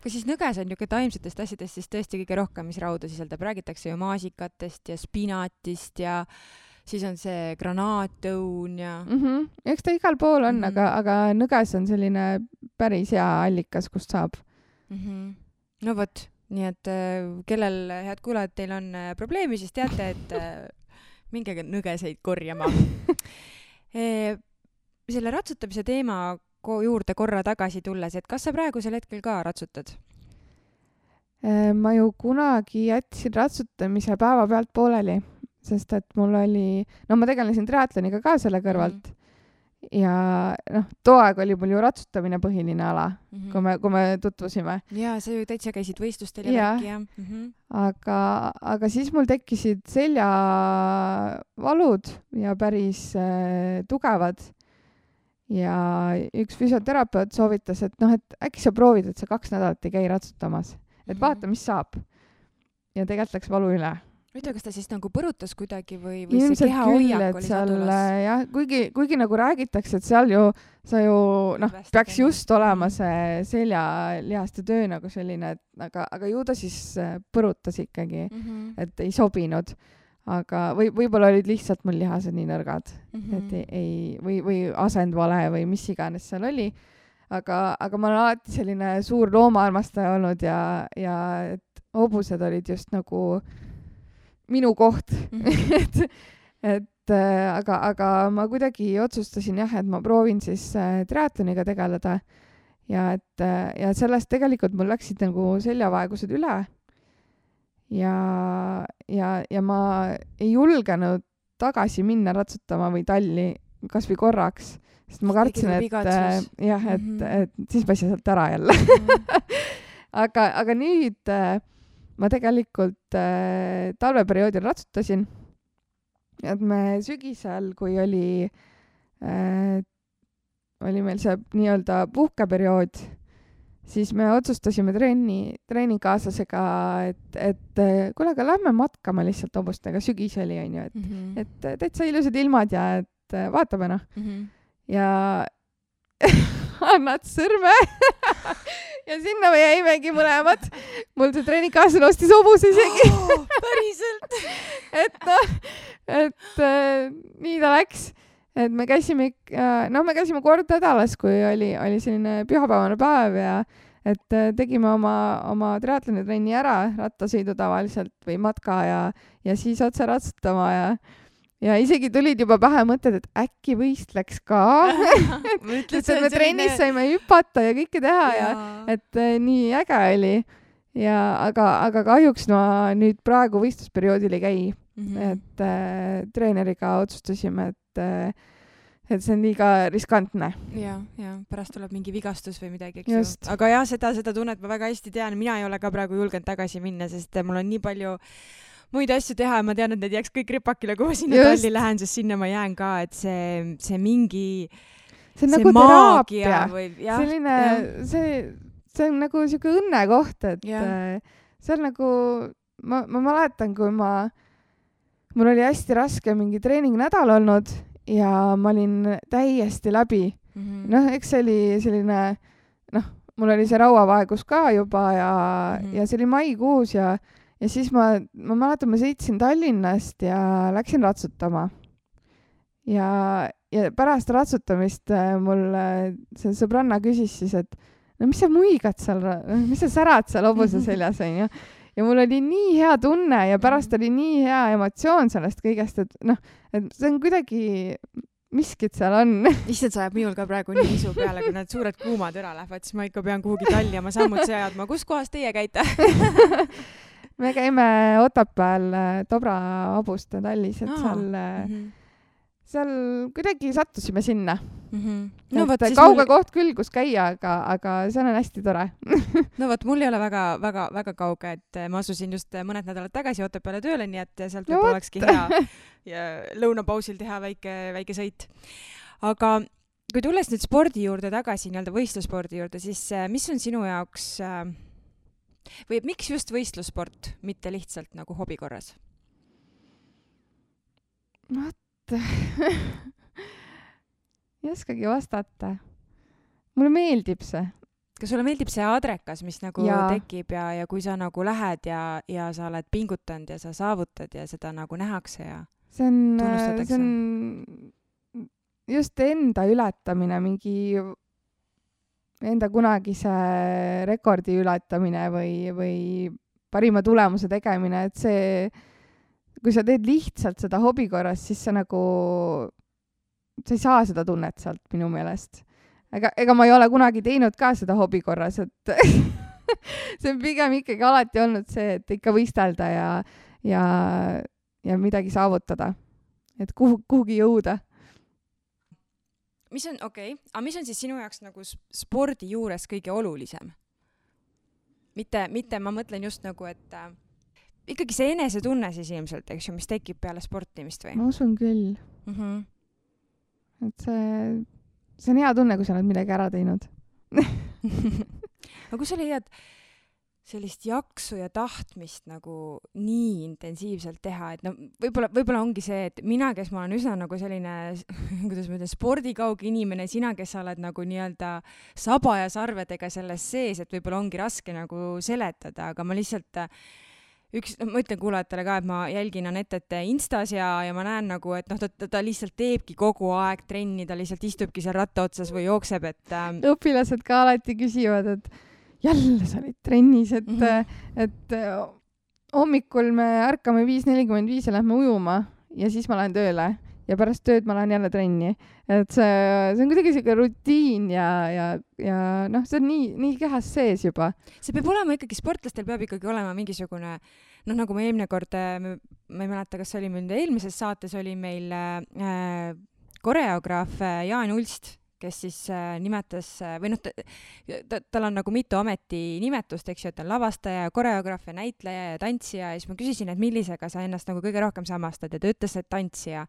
kas siis nõges on niisugune taimsetest asjadest siis tõesti kõige rohkem, mis rauda sisaldab? Räägitakse ju maasikatest ja spinatist ja siis on see granaatõun ja eks ta igal pool on, aga nõges on selline päris hea allikas, kust saab. No vot, nii et kellel, head kuulajad, teil on probleemi, siis teate, et minge nõgeseid korjama. Selle ratsutamise teema juurde korra tagasi tulles, et kas sa praegusel hetkel ka ratsutad? Ma ju kunagi jätsin ratsutamise päeva pealt pooleli, sest et mul oli, ma tegelesin triatloniga ka selle kõrvalt ja too aeg oli mul ju ratsutamine põhiline ala, kui me tutvusime. Jaa, sa ju täitsa käisid võistlustel ja värki, jah. Aga siis mul tekkisid seljavalud ja päris tugevad. Ja üks füsioterapeut soovitas, et äkki sa proovid, et sa 2 nädalat ei käi ratsutamas. Et vaata, mis saab. Ja tegelikult läks valu üle. Huvitav, kas ta siis nagu põrutas kuidagi või ilmselt see keha küll, hoiak et oli seal sadulas? jah, kuigi nagu räägitakse, et seal sa ju peaks just olema see seljalihaste töö nagu selline, et aga ju ta siis põrutas ikkagi, et ei sobinud. Aga võib-olla olid lihtsalt mul lihased nii nõrgad, et või asendvale või mis iganes seal oli. Aga ma olen alati selline suur loomaarmastaja olnud ja et hobused olid just nagu minu koht. aga ma kuidagi otsustasin jah, et ma proovin siis triatloniga tegeleda ja sellest tegelikult mul läksid nagu seljavaegused üle ja ma ei julgenud tagasi minna ratsutama või talli kas või korraks, sest ma kartsin, et siis ma ei saa sealt ära jälle. aga nüüd ma tegelikult talveperioodil ratsutasin, et me sügisel, kui oli meil see nii-öelda puhkeperiood, siis me otsustasime treeningkaaslasega, et kuule, aga lähme matkama lihtsalt hobustega, sügis oli, onju, et täitsa ilusad ilmad ja et vaatame ja annad sõrme ja sinna me jäimegi mõlemad. Mul see treeningkaaslane ostis hobuse isegi. Päriselt? et nii ta läks. Et me käisime kord nädalas, kui oli selline pühapäevane päev ja et tegime oma triatlonitrenni ära, rattasõidu tavaliselt või matka ja siis otse ratsutama ja isegi tulid juba pähe mõtted, et äkki võistleks ka. et me trennis saime hüpata ja kõike teha ja et nii äge oli. Aga kahjuks ma nüüd praegu võistlusperioodil ei käi. Et treeneriga otsustasime, et see on liiga riskantne. Ja pärast tuleb mingi vigastus või midagi, eks ju. Aga jah, seda tunnet ma väga hästi tean. Mina ei ole ka praegu julgenud tagasi minna, sest mul on nii palju muid asju teha ja ma tean, et need jääks kõik ripakile, kui ma sinna talli lähen, sest sinna ma jään ka, et see mingi see on nagu teraapia. Selline, see on nagu siuke õnnekoht, et see on nagu, ma mäletan, kui mul oli hästi raske mingi treeningnädal olnud ja ma olin täiesti läbi. Eks see oli selline, mul oli see rauavaegus ka juba ja see oli maikuus ja siis ma mäletan, ma sõitsin Tallinnast ja läksin ratsutama. Ja pärast ratsutamist mul see sõbranna küsis siis, et no mis sa muigad seal, mis sa särad seal hobuse seljas, on ju. Ja mul oli nii hea tunne ja pärast oli nii hea emotsioon sellest kõigest, et see on kuidagi miskit seal on. Issand, sa ajab minul ka praegu nii isu peale, kui need suured kuumad üle lähevad, siis ma ikka pean kuhugi talli oma sammud seadma. Kus kohas teie käite? Me käime Otepääl Dobra hobuste tallis, et seal kuidagi sattusime sinna. Kauge koht küll, kus käia, aga see on hästi tore. No võt, mul ei ole väga kauge, et ma asusin just mõned nädalad tagasi Otepääle tööle, nii et sealt võib olekski hea ja lõunapausil teha väike sõit. Aga kui tulles nüüd spordi juurde tagasi, nii-öelda võistlusspordi juurde, siis mis on sinu jaoks või miks just võistlussport, mitte lihtsalt nagu hobi korras? Ei oskagi vastata. Mulle meeldib see. Kas sulle meeldib see adrekas, mis nagu tekib ja kui sa nagu lähed ja sa oled pingutanud ja sa saavutad ja seda nagu nähakse ja tunnustatakse? See on just enda ületamine, mingi enda kunagise rekordi ületamine või parima tulemuse tegemine, et see, kui sa teed lihtsalt seda hobi korras, siis sa ei saa seda tunnet sealt minu meelest. Ega ma ei ole kunagi teinud ka seda hobi korras, et see on pigem ikkagi alati olnud see, et ikka võistelda ja midagi saavutada, et kuhugi jõuda. Mis on siis sinu jaoks nagu spordi juures kõige olulisem? Mitte ma mõtlen just nagu, et ikkagi see enesetunne siis ilmselt, eks ju, mis tekib peale sportimist või? Ma usun küll. Et see on hea tunne, kui sa oled midagi ära teinud. Aga kui sa leiad sellist jaksu ja tahtmist nagu nii intensiivselt teha, et no võib-olla ongi see, et mina, kes ma olen üsna nagu selline, kuidas ma ütlen, spordikauge inimene, sina, kes sa oled nagu nii-öelda saba ja sarvedega selles sees, et võib-olla ongi raske nagu seletada, aga ma lihtsalt ma ütlen kuulajatele ka, et ma jälgin Anettet Instas ja ma näen nagu, et noh, ta lihtsalt teebki kogu aeg trenni, ta lihtsalt istubki seal ratta otsas või jookseb, et õpilased ka alati küsivad, et jälle sa olid trennis, et hommikul me ärkame 5:45 ja lähme ujuma ja siis ma lähen tööle ja pärast tööd ma lähen jälle trenni. Et see on kuidagi selline rutiin ja noh, see on nii kehas sees juba. See peab olema ikkagi, sportlastel peab ikkagi olema mingisugune, noh, nagu me eelmine kord, ma ei mäleta, kas oli meil eelmises saates oli meil koreograaf Jaan Ulst, kes siis nimetas, või noh, tal on nagu mitu ametinimetust, eks ju, et on lavastaja, koreograaf ja näitleja ja tantsija, ja siis ma küsisin, et millisega sa ennast nagu kõige rohkem samastad, ja ta ütles, et tantsija.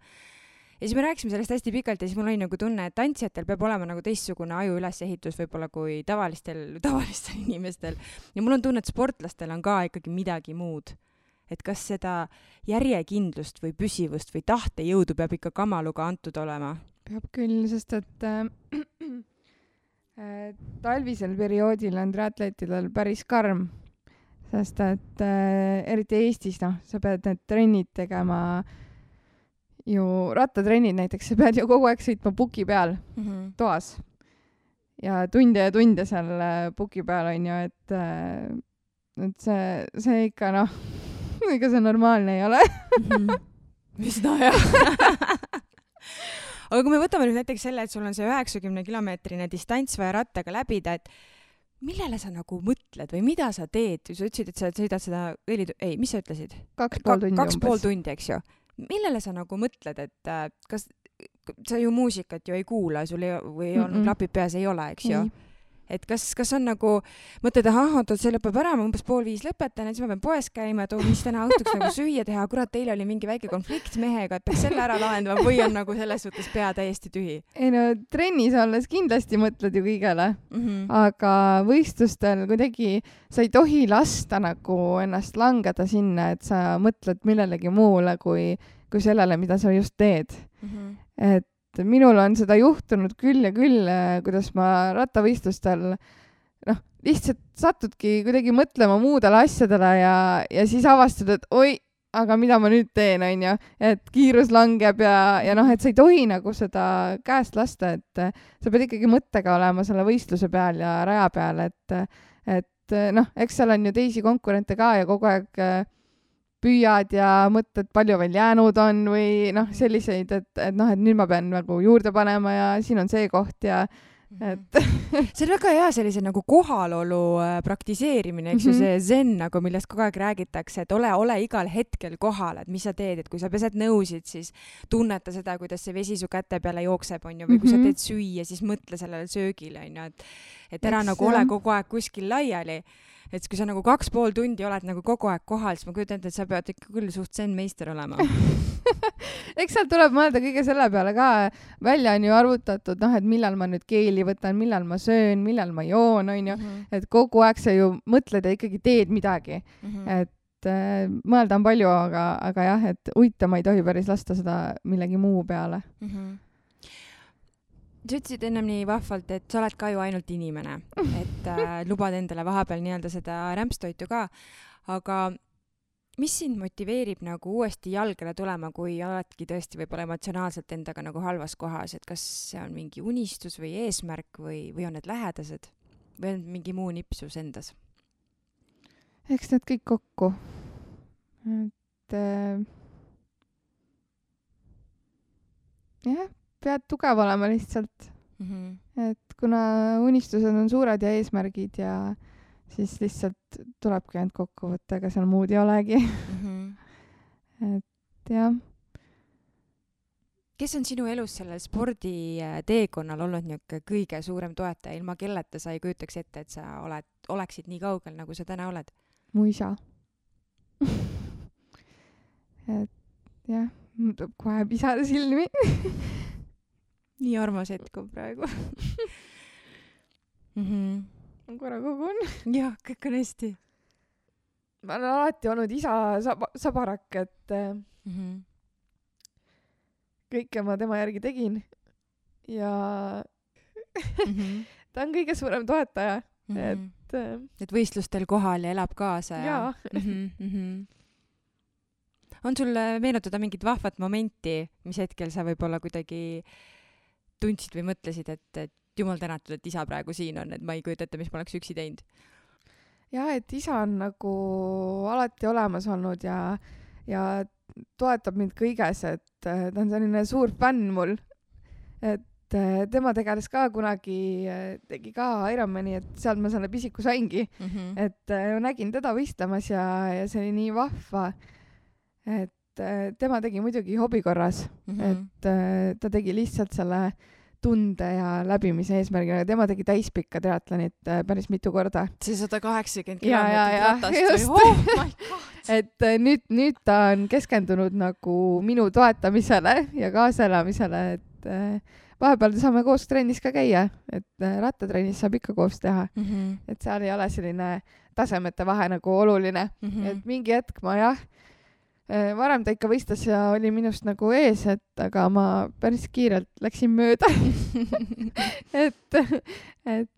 Ja siis me rääkisime sellest hästi pikalt ja siis mul oli nagu tunne, et tantsijatel peab olema nagu teistsugune aju ülesehitus võib-olla kui tavalistel inimestel. Ja mul on tunne, et sportlastel on ka ikkagi midagi muud. Et kas seda järjekindlust või püsivust või tahtejõudu peab ikka kamaluga antud olema? Peab küll, sest et talvisel perioodil on triatleetidel päris karm, sest et eriti Eestis, noh, sa pead need trennid tegema ju, rattatrennid näiteks, sa pead ju kogu aeg sõitma puki peal toas ja tunde seal puki peal on ju, et see ikka noh, ega see normaalne ei ole. Mis no jah. Aga kui me võtame nüüd näiteks selle, et sul on see 90-kilomeetrine distants vaja rattaga läbida, et millele sa nagu mõtled või mida sa teed? Sa ütlesid, et sa sõidad seda mis sa ütlesid? 2,5 tundi, eks ju. Millele sa nagu mõtled, et kas sa ju muusikat ju ei kuula, sul või on klapid peas ei ole, eks ju? Et kas on nagu, mõtled, see lõpeb ära, ma umbes 4:30 lõpetan, et siis ma pean poes käima, et mis täna õhtuks nagu süüa teha, kurat, teil oli mingi väike konflikt mehega, et peaks selle ära lahendama või on nagu selles suhtes pea täiesti tühi? Ei no, trennis olles kindlasti mõtled ju kõigele, aga võistlustel kuidagi sa ei tohi lasta nagu ennast langeda sinna, et sa mõtled millelegi muule kui sellele, mida sa just teed. Et minul on seda juhtunud küll ja küll, kuidas ma rattavõistlustel noh, lihtsalt satudki kuidagi mõtlema muudele asjadele ja siis avastad, et oi, aga mida ma nüüd teen, on ju, et kiirus langeb ja noh, et sa ei tohi nagu seda käest lasta, et sa pead ikkagi mõttega olema selle võistluse peal ja raja peal, et noh, eks seal on ju teisi konkurente ka ja kogu aeg püüad ja mõtled, palju veel jäänud on või noh, selliseid, et noh, et nüüd ma pean nagu juurde panema ja siin on see koht ja et see on väga hea sellise nagu kohalolu praktiseerimine, eks ju, see zen nagu, millest kogu aeg räägitakse, et ole igal hetkel kohal, et mis sa teed, et kui sa pesed nõusid, siis tunneta seda, kuidas see vesi su käte peale jookseb, on ju, või kui sa teed süüa, siis mõtle sellele söögile, on ju, et ära nagu ole kogu aeg kuskil laiali. Et kui sa nagu 2,5 tundi oled nagu kogu aeg kohal, siis ma kujutan ette, et sa pead ikka küll suht zen-meister olema. Eks seal tuleb mõelda kõige selle peale ka. Välja on ju arvutatud, noh, et millal ma nüüd keeli võtan, millal ma söön, millal ma joon, on ju. Et kogu aeg sa ju mõtled ja ikkagi teed midagi. Et mõelda on palju, aga jah, et uitama ei tohi päris lasta seda millegi muu peale. Sa ütlesid ennem nii vahvalt, et sa oled ka ju ainult inimene, et lubad endale vahepeal nii-öelda seda rämpstoitu ka, aga mis sind motiveerib nagu uuesti jalgele tulema, kui oledki tõesti võib-olla emotsionaalselt endaga nagu halvas kohas, et kas see on mingi unistus või eesmärk või on need lähedased või on mingi muu nipsus endas? Eks need kõik kokku. Et jah, pead tugev olema lihtsalt. Et kuna unistused on suured ja eesmärgid ja siis lihtsalt tulebki ainult kokku võtta, ega seal muud ei olegi. Et jah. Kes on sinu elus sellel sporditeekonnal olnud niisugune kõige suurem toetaja, ilma kelleta sa ei kujutaks ette, et sa oleksid nii kaugel, nagu sa täna oled? Mu isa. Et jah, mul tuleb kohe pisada silmi. Nii armas hetk on praegu. Ma korra kogun. Jah, kõik on hästi. ma olen alati olnud isa sabarak, et kõike ma tema järgi tegin ja ta on kõige suurem toetaja, et võistlustel kohal ja elab kaasa ja on sul meenutada mingit vahvat momenti, mis hetkel sa võib-olla kuidagi tundsid või mõtlesid, et jumal tänatud, et isa praegu siin on, et ma ei kujuta ette, mis ma oleks üksi teinud? Ja, et isa on nagu alati olemas olnud ja toetab mind kõiges, et ta on selline suur fänn mul, et tema tegeles ka kunagi, tegi ka Ironmani, et sealt ma selle pisiku saingi, et nägin teda võistlemas ja see oli nii vahva, et tema tegi muidugi hobi korras, et ta tegi lihtsalt selle tunde ja läbimise eesmärgina. Tema tegi täispikka triatlonit päris mitu korda. See 180 kilomeetrit ratast või? Oh my God! Et nüüd ta on keskendunud nagu minu toetamisele ja kaasaelamisele, et vahepeal saame koos trennis ka käia, et rattatrennis saab ikka koos teha. Et seal ei ole selline tasemete vahe nagu oluline. Et mingi hetk ma varem ta ikka võistles ja oli minust nagu ees, aga ma päris kiirelt läksin mööda. et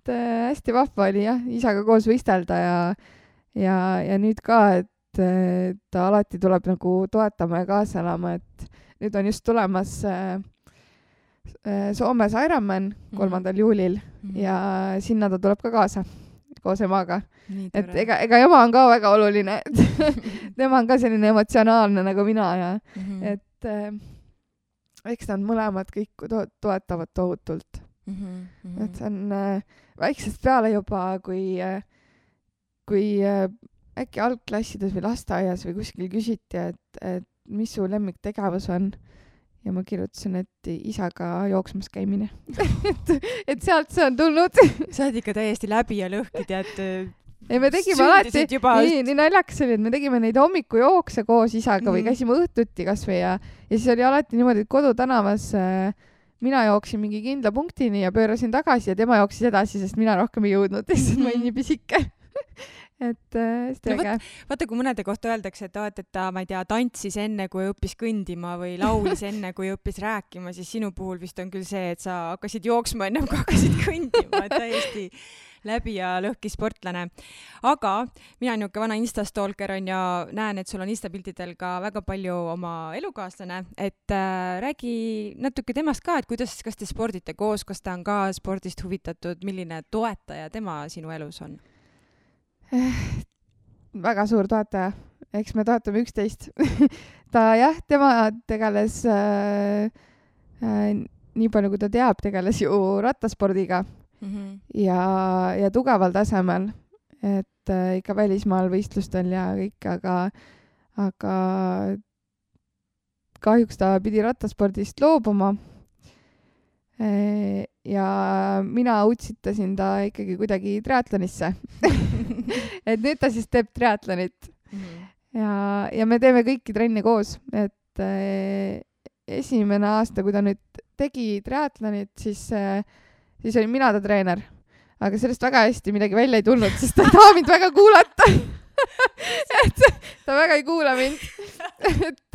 hästi vahva oli isaga koos võistelda ja nüüd ka, et ta alati tuleb nagu toetama ja kaasa elama, et nüüd on just tulemas Soomes Ironman 3. juulil ja sinna ta tuleb ka kaasa koos emaga. Et ega ema on ka väga oluline, et tema on ka selline emotsionaalne nagu mina ja et eks nad mõlemad kõik toetavad tohutult. Et see on väiksest peale juba, kui äkki algklassides või lasteaias või kuskil küsiti, et mis su lemmiktegevus on. Ja ma kirjutasin, et isaga jooksmas käimine. et sealt see on tulnud. Sa oled ikka täiesti läbi ja lõhki, tead. Ei, me tegime alati, nii naljakas oli, et me tegime neid hommikujookse koos isaga või käisime õhtuti kasvõi ja siis oli alati niimoodi, et kodutänavas mina jooksin mingi kindla punktini ja pöörasin tagasi ja tema jooksis edasi, sest mina rohkem ei jõudnud, sest ma olin nii pisike. Et hästi äge. Vaata, kui mõnede kohta öeldakse, et ta, ma ei tea, tantsis enne, kui õppis kõndima või laulis enne, kui õppis rääkima, siis sinu puhul vist on küll see, et sa hakkasid jooksma ennem, kui hakkasid kõndima, et täiesti läbi ja lõhki sportlane. Aga mina niuke vana Instastalker on ja näen, et sul on Instapiltidel ka väga palju oma elukaaslane, et räägi natuke temast ka, et kas te spordite koos, kas ta on ka spordist huvitatud, milline toetaja tema sinu elus on? Väga suur toetaja, eks me toetame 11. tema tegeles nii palju, kui ta teab, tegeles ju rattaspordiga ja tugeval tasemel, et ikka välismaal võistlustel ja kõik, aga kahjuks ta pidi rattaspordist loobuma. Ja mina utsitasin ta ikkagi kuidagi triatlonisse. Et nüüd ta siis teeb triatlonit. Ja me teeme kõiki trenne koos. Et esimene aasta, kui ta nüüd tegi triatlonit, siis oli mina ta treener. Aga sellest väga hästi midagi välja ei tulnud, sest ta ei taha mind väga kuulata. Et ta väga ei kuula mind. Et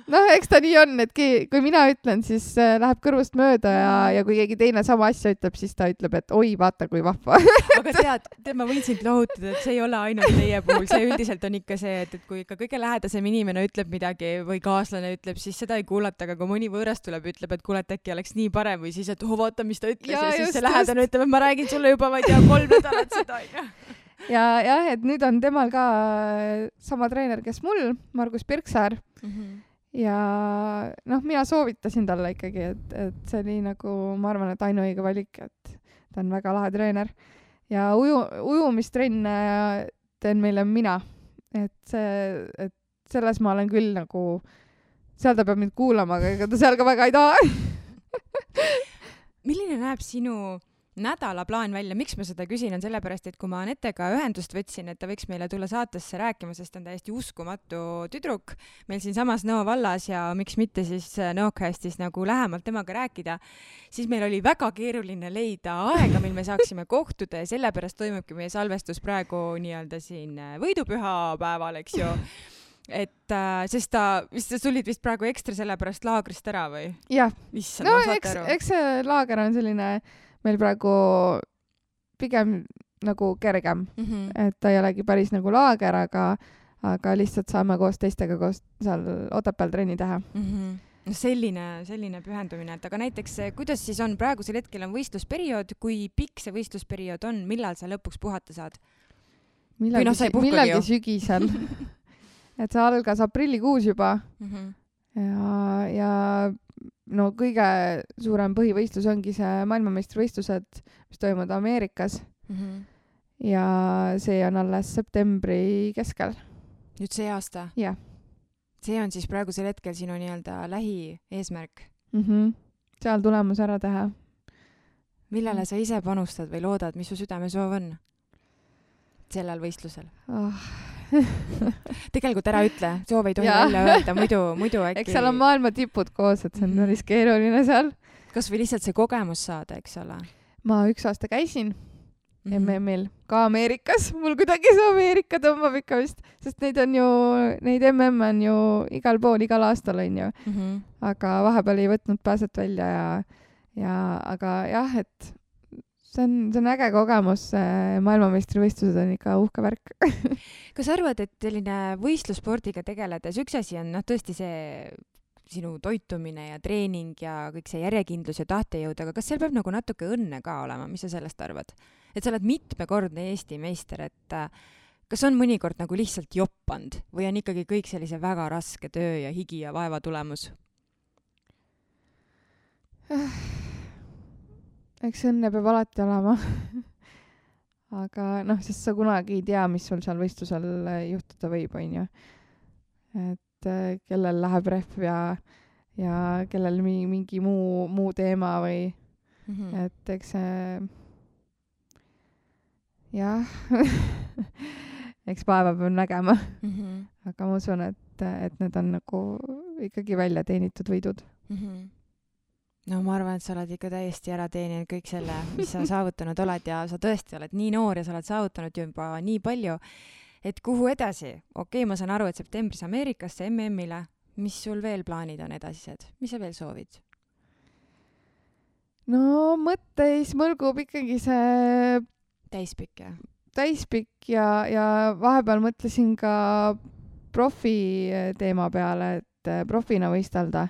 eks ta nii on, et kui mina ütlen, siis läheb kõrvust mööda ja kui keegi teine sama asja ütleb, siis ta ütleb, et oi, vaata kui vahva. Aga tead, ma võin sind lohutada, et see ei ole ainult teie puhul. See üldiselt on ikka see, et kui ikka kõige lähedasem inimene ütleb midagi või kaaslane ütleb, siis seda ei kuulata, aga kui mõni võõras tuleb, ütleb, et kuule, äkki oleks nii parem või siis, et vaata, mis ta ütles ja siis see lähedane ütleb, et ma räägin sulle juba, ma ei tea, 3 nädalat seda. Ja, et nüüd on temal ka sama treener, kes mul, Margus Pirksaar. Ja mina soovitasin talle ikkagi, et see oli nagu, ma arvan, et ainuõige valik, et ta on väga lahe treener. Ja ujumistrenne teen meile mina. Et selles ma olen küll nagu, seal ta peab mind kuulama, aga ega ta seal ka väga ei taha. Milline näeb sinu nädalaplaan välja, miks ma seda küsin, on sellepärast, et kui ma Anetega ühendust võtsin, et ta võiks meile tulla saatesse rääkima, sest ta on täiesti uskumatu tüdruk meil siin samas Nõo vallas ja miks mitte siis Nõocastis nagu lähemalt temaga rääkida, siis meil oli väga keeruline leida aega, mil me saaksime kohtuda ja sellepärast toimubki meie salvestus praegu nii-öelda siin võidupüha päeval, eks ju. Et sest sa tulid vist praegu ekstra sellepärast laagrist ära või? Jah, no eks see laager on selline meil praegu pigem nagu kergem, et ta ei olegi päris nagu laager, aga lihtsalt saame koos teistega koos seal Otepääl trenni teha. No selline pühendumine, et aga näiteks kuidas siis on, praegusel hetkel on võistlusperiood, kui pikk see võistlusperiood on, millal sa lõpuks puhata saad? Millalgi sügisel. Et see algas aprillikuus juba ja no kõige suurem põhivõistlus ongi see maailmameistrivõistlused, mis toimuvad Ameerikas. Ja see on alles septembri keskel. Nüüd see aasta? Jah. See on siis praegusel hetkel sinu nii-öelda lähieesmärk? Seal tulemus ära teha. Millele sa ise panustad või loodad, mis su südamesoov on sellel võistlusel? Tegelikult ära ütle, soov ei tohi välja öelda, muidu äkki... Eks seal on maailma tipud koos, et see on päris keeruline seal. Kas või lihtsalt see kogemus saada, eks ole? Ma 1 aasta käisin MM-il, ka Ameerikas. Mul kuidagi see Ameerika tõmbab ikka vist, sest neid MM on ju igal pool, igal aastal on ju. Aga vahepeal ei võtnud pääset välja aga jah, et see on äge kogemus, maailmameistrivõistlused on ikka uhke värk. Kas arvad, et selline võistlusspordiga tegeledes, üks asi on tõesti see sinu toitumine ja treening ja kõik see järjekindlus ja tahtejõud, aga kas seal peab nagu natuke õnne ka olema, mis sa sellest arvad? Et sa oled mitmekordne Eesti meister, et kas on mõnikord nagu lihtsalt joppand või on ikkagi kõik sellise väga raske töö ja higi ja vaeva tulemus? Eks õnne peab alati olema. Aga sest sa kunagi ei tea, mis sul seal võistlusel juhtuda võib, on ju. Et kellel läheb rehv ja kellel mingi muu teema või et eks see jah eks päeva peab nägema. Aga ma usun, et need on nagu ikkagi välja teenitud võidud. No ma arvan, et sa oled ikka täiesti ära teeninud kõik selle, mis sa saavutanud oled ja sa tõesti oled nii noor ja sa oled saavutanud juba nii palju, et kuhu edasi? Okei, ma saan aru, et septembris Ameerikasse MM-ile, mis sul veel plaanid on edasised? Mis sa veel soovid? No mõtteis mõlgub ikkagi see täispikk ja vahepeal mõtlesin ka profi teema peale, et profina võistelda.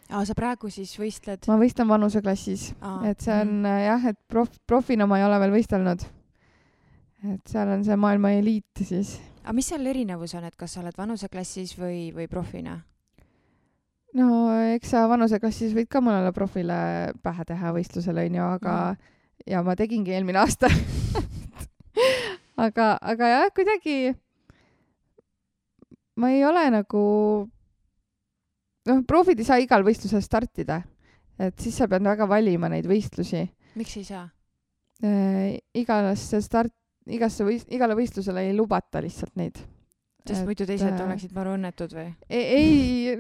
Sa praegu siis võistled? Ma võistlen vanuseklassis. Et see on jah, et profina ma ei ole veel võistelnud. Et seal on see maailma eliit siis. Aga mis seal erinevus on, et kas sa oled vanuseklassis või profina? No eks sa vanuseklassis võid ka mõnele profile pähe teha võistlusele, aga ja ma tegingi eelmine aasta. aga jah, kuidagi ma ei ole nagu profid ei saa igal võistlusel startida, et siis sa pead väga valima neid võistlusi. Miks ei saa? Igale võistlusele ei lubata lihtsalt neid. Sest muidu teised oleksid maru õnnetud või? Ei,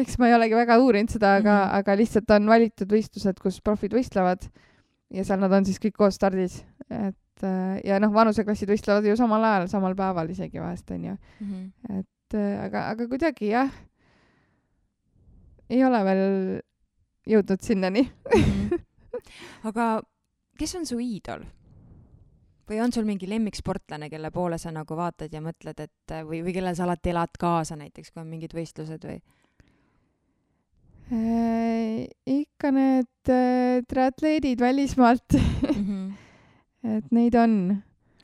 eks ma ei olegi väga uurinud seda, aga lihtsalt on valitud võistlused, kus profid võistlevad ja seal nad on siis kõik koos stardis. Ja vanuseklassid võistlevad ju samal ajal, samal päeval isegi vahest on ju. Aga kuidagi jah, ei ole veel jõudnud sinnani. Aga kes on su iidol? Või on sul mingi lemmiksportlane, kelle poole sa nagu vaatad ja mõtled, et või kellel sa alati elad kaasa näiteks, kui on mingid võistlused või? Ikka need triatleedid välismaalt. Et neid on.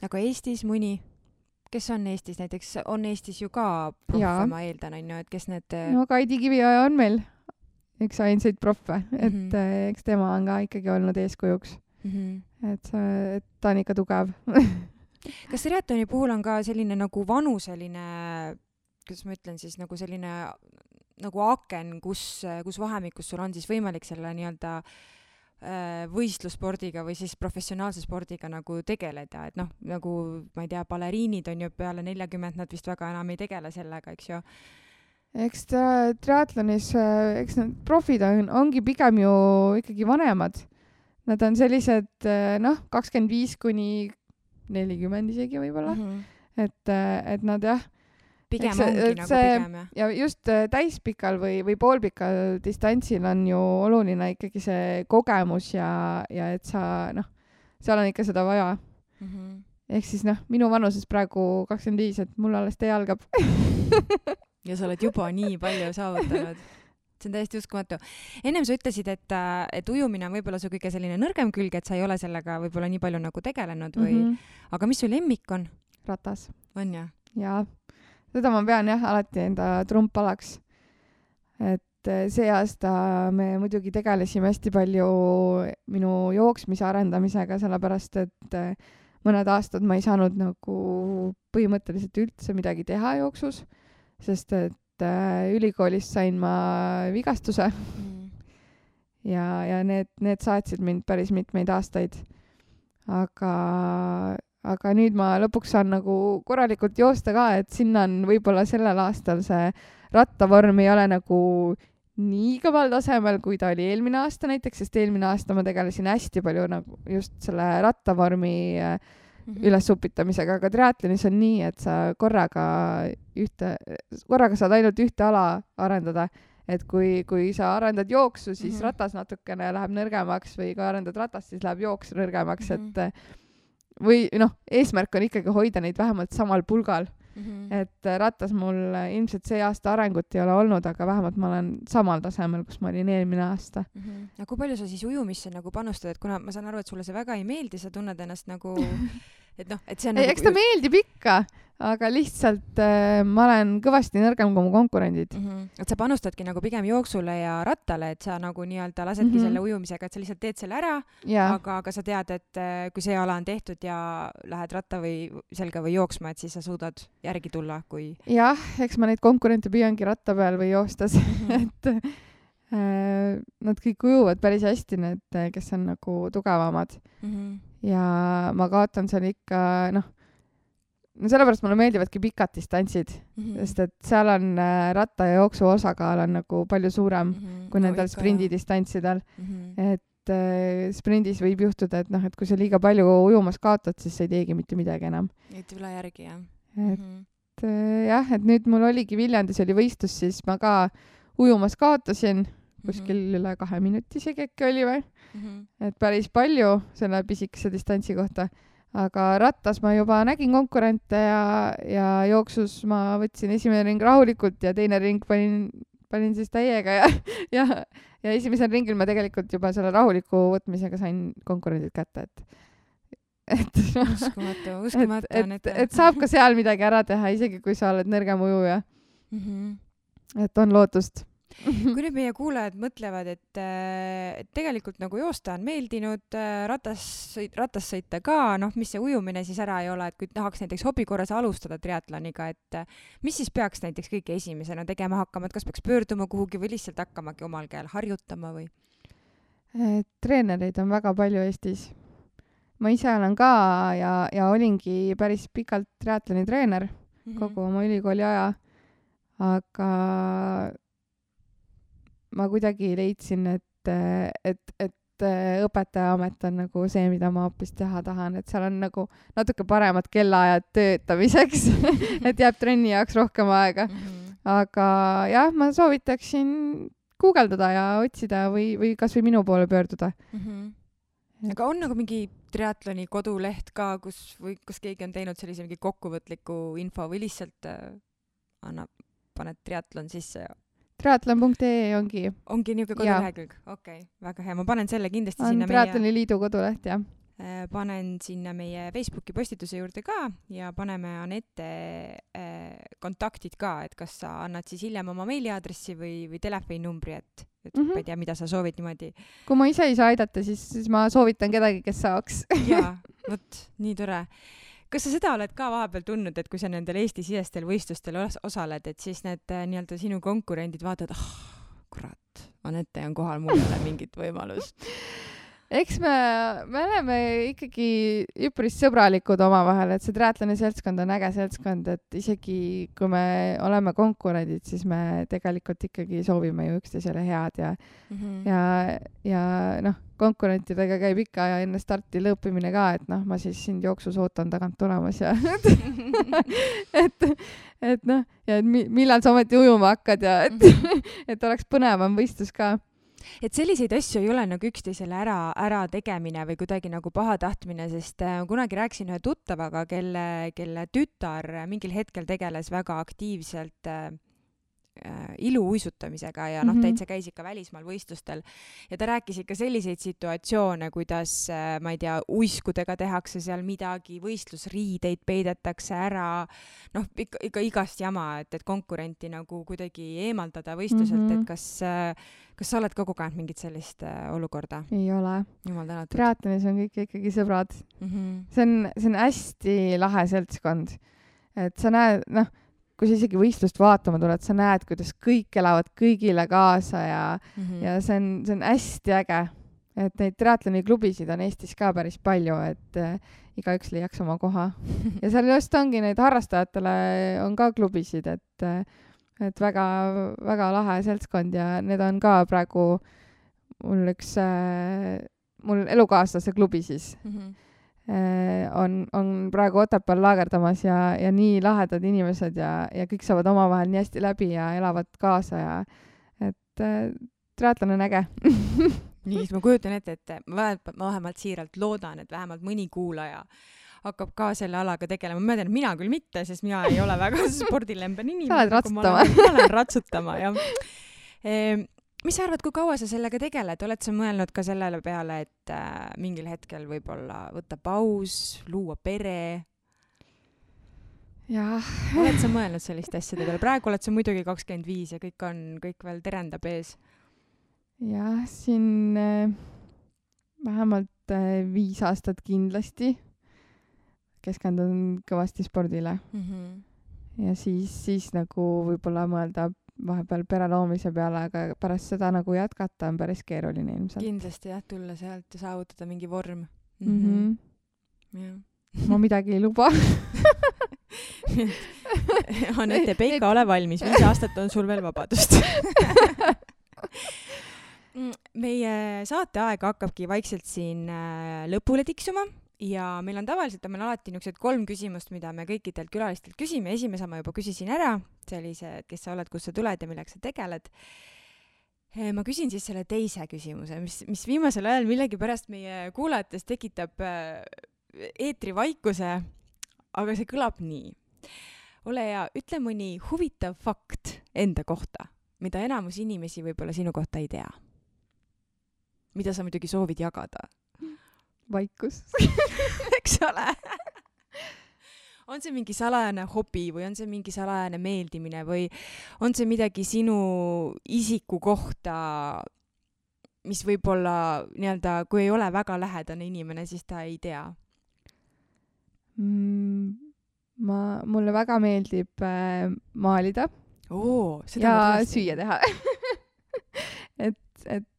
Aga Eestis mõni? Kes on Eestis näiteks? On Eestis ju ka proffe, ma eeldan, on ju, et kes need... No Kaidi Kivioja on meil üks ainsaid proffe, et eks tema on ka ikkagi olnud eeskujuks. Et ta on ikka tugev. Kas triatloni puhul on ka selline nagu vanuseline, kuidas ma ütlen siis, nagu selline nagu aken, kus vahemikus sul on siis võimalik selle nii-öelda võistlusspordiga või siis professionaalse spordiga nagu tegeleda, et noh, nagu ma ei tea, baleriinid on ju peale 40, nad vist väga enam ei tegele sellega, eks ju. Eks triatlonis, eks need profid ongi pigem ju ikkagi vanemad. Nad on sellised, 25 kuni 40 isegi võib-olla. Et nad jah, pigem ongi nagu pigem, jah. Ja just täispikal või poolpikal distantsil on ju oluline ikkagi see kogemus ja et sa, seal on ikka seda vaja. Ehk siis minu vanuses praegu 25, et mul alles tee algab. Ja sa oled juba nii palju saavutanud. See on täiesti uskumatu. Ennem sa ütlesid, et ujumine on võib-olla su kõige selline nõrgem külg, et sa ei ole sellega võib-olla nii palju nagu tegelenud või... Aga mis su lemmik on? Ratas. On jah? Jaa. Seda ma pean jah alati enda trumpalaks. Et see aasta me muidugi tegelesime hästi palju minu jooksmise arendamisega, sellepärast et mõned aastad ma ei saanud nagu põhimõtteliselt üldse midagi teha jooksus, sest et ülikoolis sain ma vigastuse ja need saatsid mind päris mitmeid aastaid. Aga nüüd ma lõpuks saan nagu korralikult joosta ka, et sinna on võib-olla sellel aastal see rattavorm ei ole nagu nii kõval tasemel, kui ta oli eelmine aasta näiteks, sest eelmine aasta ma tegelesin hästi palju nagu just selle rattavormi üles upitamisega, aga triatlonis on nii, et sa korraga saad ainult ühte ala arendada, et kui sa arendad jooksu, siis ratas natukene läheb nõrgemaks või kui arendad ratast, siis läheb jooks nõrgemaks, et või eesmärk on ikkagi hoida neid vähemalt samal pulgal. Et ratas mul ilmselt see aasta arengut ei ole olnud, aga vähemalt ma olen samal tasemel, kus ma olin eelmine aasta. Ja kui palju sa siis ujumisse nagu panustad, et kuna ma saan aru, et sulle see väga ei meeldi, sa tunned ennast nagu et see on ei, eks ta meeldib ikka, aga lihtsalt ma olen kõvasti nõrgem kui mu konkurendid. Et sa panustadki nagu pigem jooksule ja rattale, et sa nagu nii-öelda lasedki selle ujumisega, et sa lihtsalt teed selle ära, aga sa tead, et kui see ala on tehtud ja lähed ratta või selga või jooksma, et siis sa suudad järgi tulla, kui... Jah, eks ma neid konkurente püüangi ratta peal või joostas, et nad kõik ujuvad päris hästi, need, kes on nagu tugevamad. Ja ma kaotan seal ikka, sellepärast mulle meeldivadki pikad distantsid, sest et seal on ratta ja jooksu osakaal on nagu palju suurem kui nendel sprindidistantsidel. Et sprindis võib juhtuda, et kui sa liiga palju ujumas kaotad, siis sa ei teegi mitte midagi enam. Et üle järgi, jah. Et jah, et nüüd mul oligi Viljandis oli võistlus, siis ma ka ujumas kaotasin kuskil üle 2 minuti isegi äkki oli või. Et päris palju selle pisikese distantsi kohta. Aga rattas ma juba nägin konkurente ja jooksus ma võtsin esimene ring rahulikult ja teine ring panin siis täiega ja esimesel ringil ma tegelikult juba selle rahuliku võtmisega sain konkurendid kätte, uskumatu. Et saab ka seal midagi ära teha, isegi kui sa oled nõrgem ujuja. Et on lootust. Kui nüüd meie kuulajad mõtlevad, et tegelikult nagu joosta on meeldinud, ratas sõita ka, mis see ujumine siis ära ei ole, et kui tahaks näiteks hobi korras alustada triatloniga, et mis siis peaks näiteks kõige esimesena tegema hakkama, et kas peaks pöörduma kuhugi või lihtsalt hakkamagi omal käel harjutama või? Treenereid on väga palju Eestis. Ma ise olen ka ja olingi päris pikalt triatloni treener kogu oma ülikooli aja, aga ma kuidagi leidsin, et õpetajaamet on nagu see, mida ma hoopis teha tahan, et seal on nagu natuke paremad kellaajad töötamiseks, et jääb trenni jaoks rohkem aega. Aga jah, ma soovitaksin guugeldada ja otsida või kas või minu poole pöörduda. Aga on nagu mingi triatloni koduleht ka, kus keegi on teinud sellise mingi kokkuvõtliku info või lihtsalt paned triatlon sisse ja triatlon.ee ongi niisugune kodulehekülg. Okei, väga hea. Ma panen selle kindlasti sinna Triatloni liidu koduleht, jah. Panen sinna meie Facebooki postituse juurde ka ja paneme Anette kontaktid ka, et kas sa annad siis hiljem oma meiliaadressi või telefoninumbri, et ma ei tea, mida sa soovid niimoodi. Kui ma ise ei saa aidata, siis ma soovitan kedagi, kes saaks. Jaa, vot, nii tore. Kas sa seda oled ka vahepeal tundnud, et kui sa nendel Eesti-sisestel võistlustel osaled, et siis need nii-öelda sinu konkurendid vaatavad, kurat, Anette on kohal, mul ei ole mingit võimalust? eks me oleme ikkagi üpris sõbralikud omavahel, et see triatloni seltskond on äge seltskond, et isegi kui me oleme konkurendid, siis me tegelikult ikkagi soovime ju üksteisele head ja noh, konkurentidega käib ikka ja enne starti lõõpimine ka, et noh, ma siis sind jooksus ootan tagant tulemas ja et noh, ja millal sa ometi ujuma hakkad ja et oleks põnevam võistlus ka. Et selliseid asju ei ole nagu üksteisele ära tegemine või kuidagi nagu pahatahtmine, sest kunagi rääkisin ühe tuttavaga, kelle tütar mingil hetkel tegeles väga aktiivselt iluuisutamisega ja noh, täitsa käis ikka välismaal võistlustel ja ta rääkis ikka selliseid situatsioone, kuidas, ma ei tea, uiskudega tehakse seal midagi, võistlusriideid peidetakse ära, noh, ikka igast jama, et konkurenti nagu kuidagi eemaldada võistluselt, et kas sa oled ka kogenud mingit sellist olukorda? Ei ole. Jumal tänatud. Triatlonis on kõik ikkagi sõbrad. See on hästi lahe seltskond. Et sa näed, noh, kui sa isegi võistlust vaatama tuled, sa näed, kuidas kõik elavad kõigile kaasa ja see on hästi äge. Et neid triatloni klubisid on Eestis ka päris palju, et igaüks leiaks oma koha. Ja seal just ongi neid harrastajatele on ka klubisid, et väga, väga lahe seltskond ja need on ka praegu mul elukaaslase klubi siis. On praegu Otepääl laagerdamas ja nii lahedad inimesed ja kõik saavad omavahel nii hästi läbi ja elavad kaasa ja et triatlon on äge. Nii, siis ma kujutan ette, et ma vähemalt siiralt loodan, et vähemalt mõni kuulaja hakkab ka selle alaga tegelema. Ma tean, et mina küll mitte, sest mina ei ole väga spordilemben inimene. Sa oled ratsutama. Ma olen ratsutama, jah. Mis sa arvad, kui kaua sa sellega tegeled? Oled sa mõelnud ka sellele peale, et mingil hetkel võib-olla võtta paus, luua pere? Jah. Oled sa mõelnud sellist asjade peale? Praegu oled sa muidugi 25 ja kõik veel terendab ees. Jah, siin vähemalt 5 aastat kindlasti keskendun kõvasti spordile. Ja siis nagu võib-olla mõelda vahepeal pere loomise peale, aga pärast seda nagu jätkata on päris keeruline ilmselt. Kindlasti jah, tulla sealt ja saavutada mingi vorm. Ja. Ma midagi ei luba. Anette Peika, ole valmis. 5 aastat on sul veel vabadust. Meie saateaeg hakkabki vaikselt siin lõpule tiksuma. Ja meil on tavaliselt alati niisugused 3 küsimust, mida me kõikidelt külalistelt küsime. Esimese ma juba küsisin ära, sellised, kes sa oled, kus sa tuled ja millega sa tegeled. Ma küsin siis selle teise küsimuse, mis viimasel ajal millegi pärast meie kuulajates tekitab eetrivaikuse, aga see kõlab nii. Ole hea, ütle mõni huvitav fakt enda kohta, mida enamus inimesi võib-olla sinu kohta ei tea. Mida sa muidugi soovid jagada? Vaikus. Eks ole? On see mingi salajane hobi või on see mingi salajane meeldimine või on see midagi sinu isiku kohta, mis võib-olla nii-öelda, kui ei ole väga lähedane inimene, siis ta ei tea? Mulle väga meeldib maalida ja süüa teha. et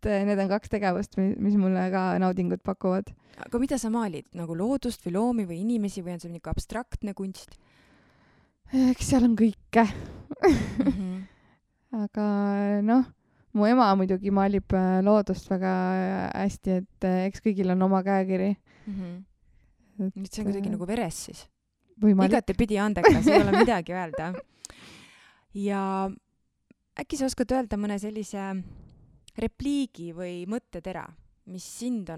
need on 2 tegevust, mis mulle ka naudingut pakuvad. Aga mida sa maalid? Nagu loodust või loomi või inimesi või on see mingi abstraktne kunst? Eks seal on kõike. Aga noh, mu ema muidugi maalib loodust väga hästi, et eks kõigil on oma käekiri. Nüüd see on kuidagi nagu veres siis. Igati pidi andekas, ei ole midagi öelda. Ja äkki sa oskad öelda mõne sellise repliigi või mõttetera, mis sind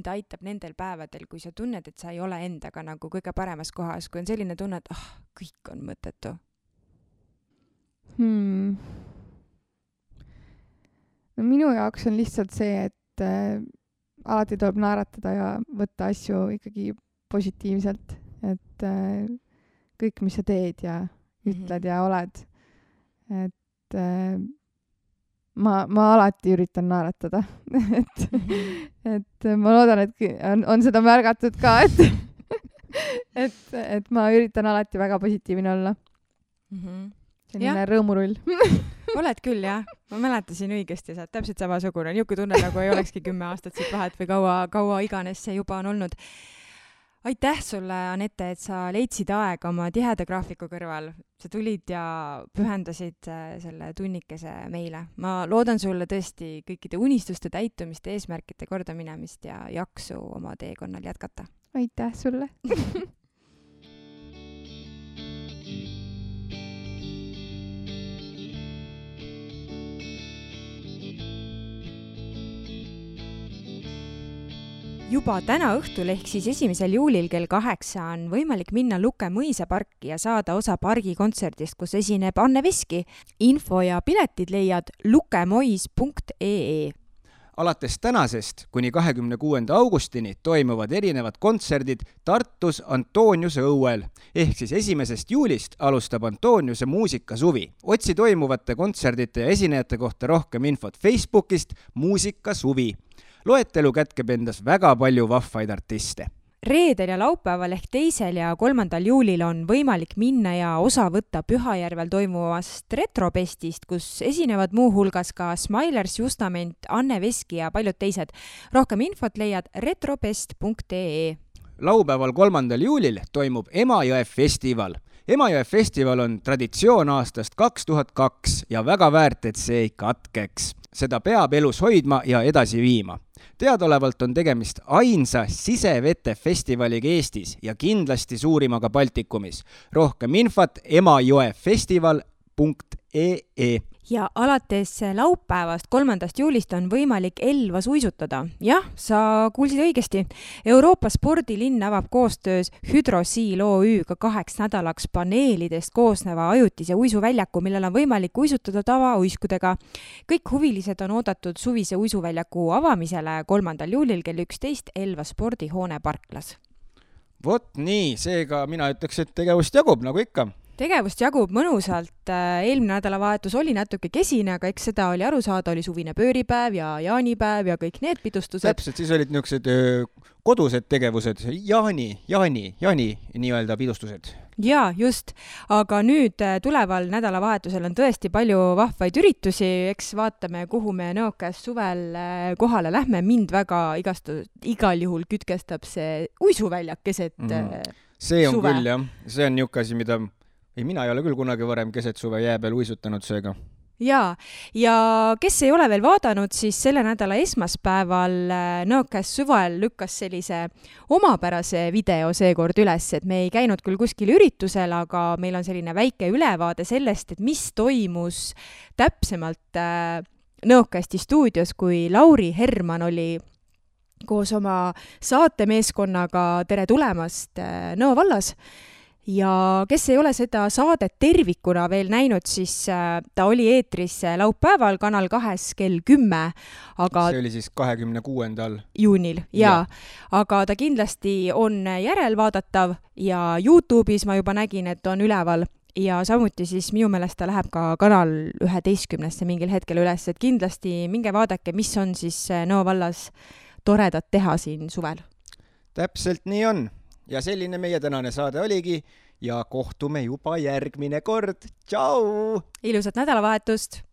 aitab nendel päevadel, kui sa tunned, et sa ei ole endaga nagu kõige paremas kohas, kui on selline tunne, et kõik on mõttetu? No minu jaoks on lihtsalt see, et alati tuleb naeratada ja võtta asju ikkagi positiivselt, et kõik, mis sa teed ja ütled ja oled, et ma alati üritan naeratada. et ma loodan, et on seda märgatud ka, et ma üritan alati väga positiivne olla. Selline rõõmurull. oled küll, jah. Ma mäletasin õigesti, sa oled täpselt samasugune. Niuke tunne, nagu ei olekski 10 aastat siit vahet või kaua iganes see juba on olnud. Aitäh sulle, Anette, et sa leidsid aega oma tiheda graafiku kõrval. Sa tulid ja pühendasid selle tunnikese meile. Ma loodan sulle tõesti kõikide unistuste täitumist, eesmärkide kordaminemist ja jaksu oma teekonnal jätkata. Aitäh sulle! Juba täna õhtul ehk siis 1. juulil kell 8 on võimalik minna Luke mõisaparki ja saada osa pargikontserdist, kus esineb Anne Veski. Info ja piletid leiad lukemois.ee. Alates tänasest kuni 26. augustini toimuvad erinevad kontserdid Tartus Antoniuse õuel. Ehk siis 1. juulist alustab Antoniuse muusikasuvi. Otsi toimuvate kontserdite ja esinejate kohta rohkem infot Facebookist Muusikasuvi. Loetelu kätkeb endas väga palju vahvaid artiste. Reedel ja laupäeval ehk 2. ja 3. juulil on võimalik minna ja osa võtta Pühajärvel toimuvast Retropestist, kus esinevad muu hulgas ka Smilers, Justament, Anne Veski ja paljud teised. Rohkem infot leiad retropest.ee. Laupäeval 3. juulil toimub Emajõe festival. Emajõe festival on traditsioon aastast 2002 ja väga väärt, et see ei katkeks. Seda peab elus hoidma ja edasi viima. Teadolevalt on tegemist ainsa sisevete festivaliga Eestis ja kindlasti suurimaga Baltikumis. Rohkem infot emajõefestival.ee. Ja alates laupäevast 3. juulist on võimalik Elvas uisutada. Jah, sa kuulsid õigesti. Euroopa spordilinn avab koostöös Hydrosiil OÜ-ga 2 nädalaks paneelidest koosneva ajutise uisuväljaku, millel on võimalik uisutada tavauiskudega. Kõik huvilised on oodatud suvise uisuväljaku avamisele 3. juulil kell 11 Elva spordihoone parklas. Vot nii, seega mina ütleks, et tegevust jagub nagu ikka. Tegevust jagub mõnusalt. Eelmine nädalavahetus oli natuke kesine, aga eks seda oli aru saada, oli suvine pööripäev ja jaanipäev ja kõik need pidustused. Täpselt, siis olid niisugused kodused tegevused, jaani nii-öelda pidustused. Jaa, just. Aga nüüd tuleval nädalavahetusel on tõesti palju vahvaid üritusi. Eks vaatame, kuhu me Nõokas suvel kohale lähme. Mind väga igal juhul kütkestab see uisuväljak keset See on suve. küll, jah. See on niisugune asi, mida... mina ei ole küll kunagi varem keset suve jää peal uisutanud seega. Jaa, ja kes ei ole veel vaadanud, siis selle nädala esmaspäeval Nõokas suvel lükkas sellise omapärase video seekord üles, et me ei käinud küll kuskil üritusel, aga meil on selline väike ülevaade sellest, et mis toimus täpsemalt Nõokasti stuudios, kui Lauri Herman oli koos oma saatemeeskonnaga Tere tulemast Nõo vallas. Ja kes ei ole seda saadet tervikuna veel näinud, siis ta oli eetris laupäeval Kanal 2 kell 10. Aga see oli siis 26. juunil, jaa. Aga ta kindlasti on järelvaadatav ja YouTube'is ma juba nägin, et on üleval. Ja samuti siis minu meelest ta läheb ka Kanal 11 mingil hetkel üles, et kindlasti minge vaadake, mis on siis Nõo vallas toredat teha siin suvel. Täpselt nii on. Ja selline meie tänane saade oligi ja kohtume juba järgmine kord. Tšau! Ilusat nädalavahetust!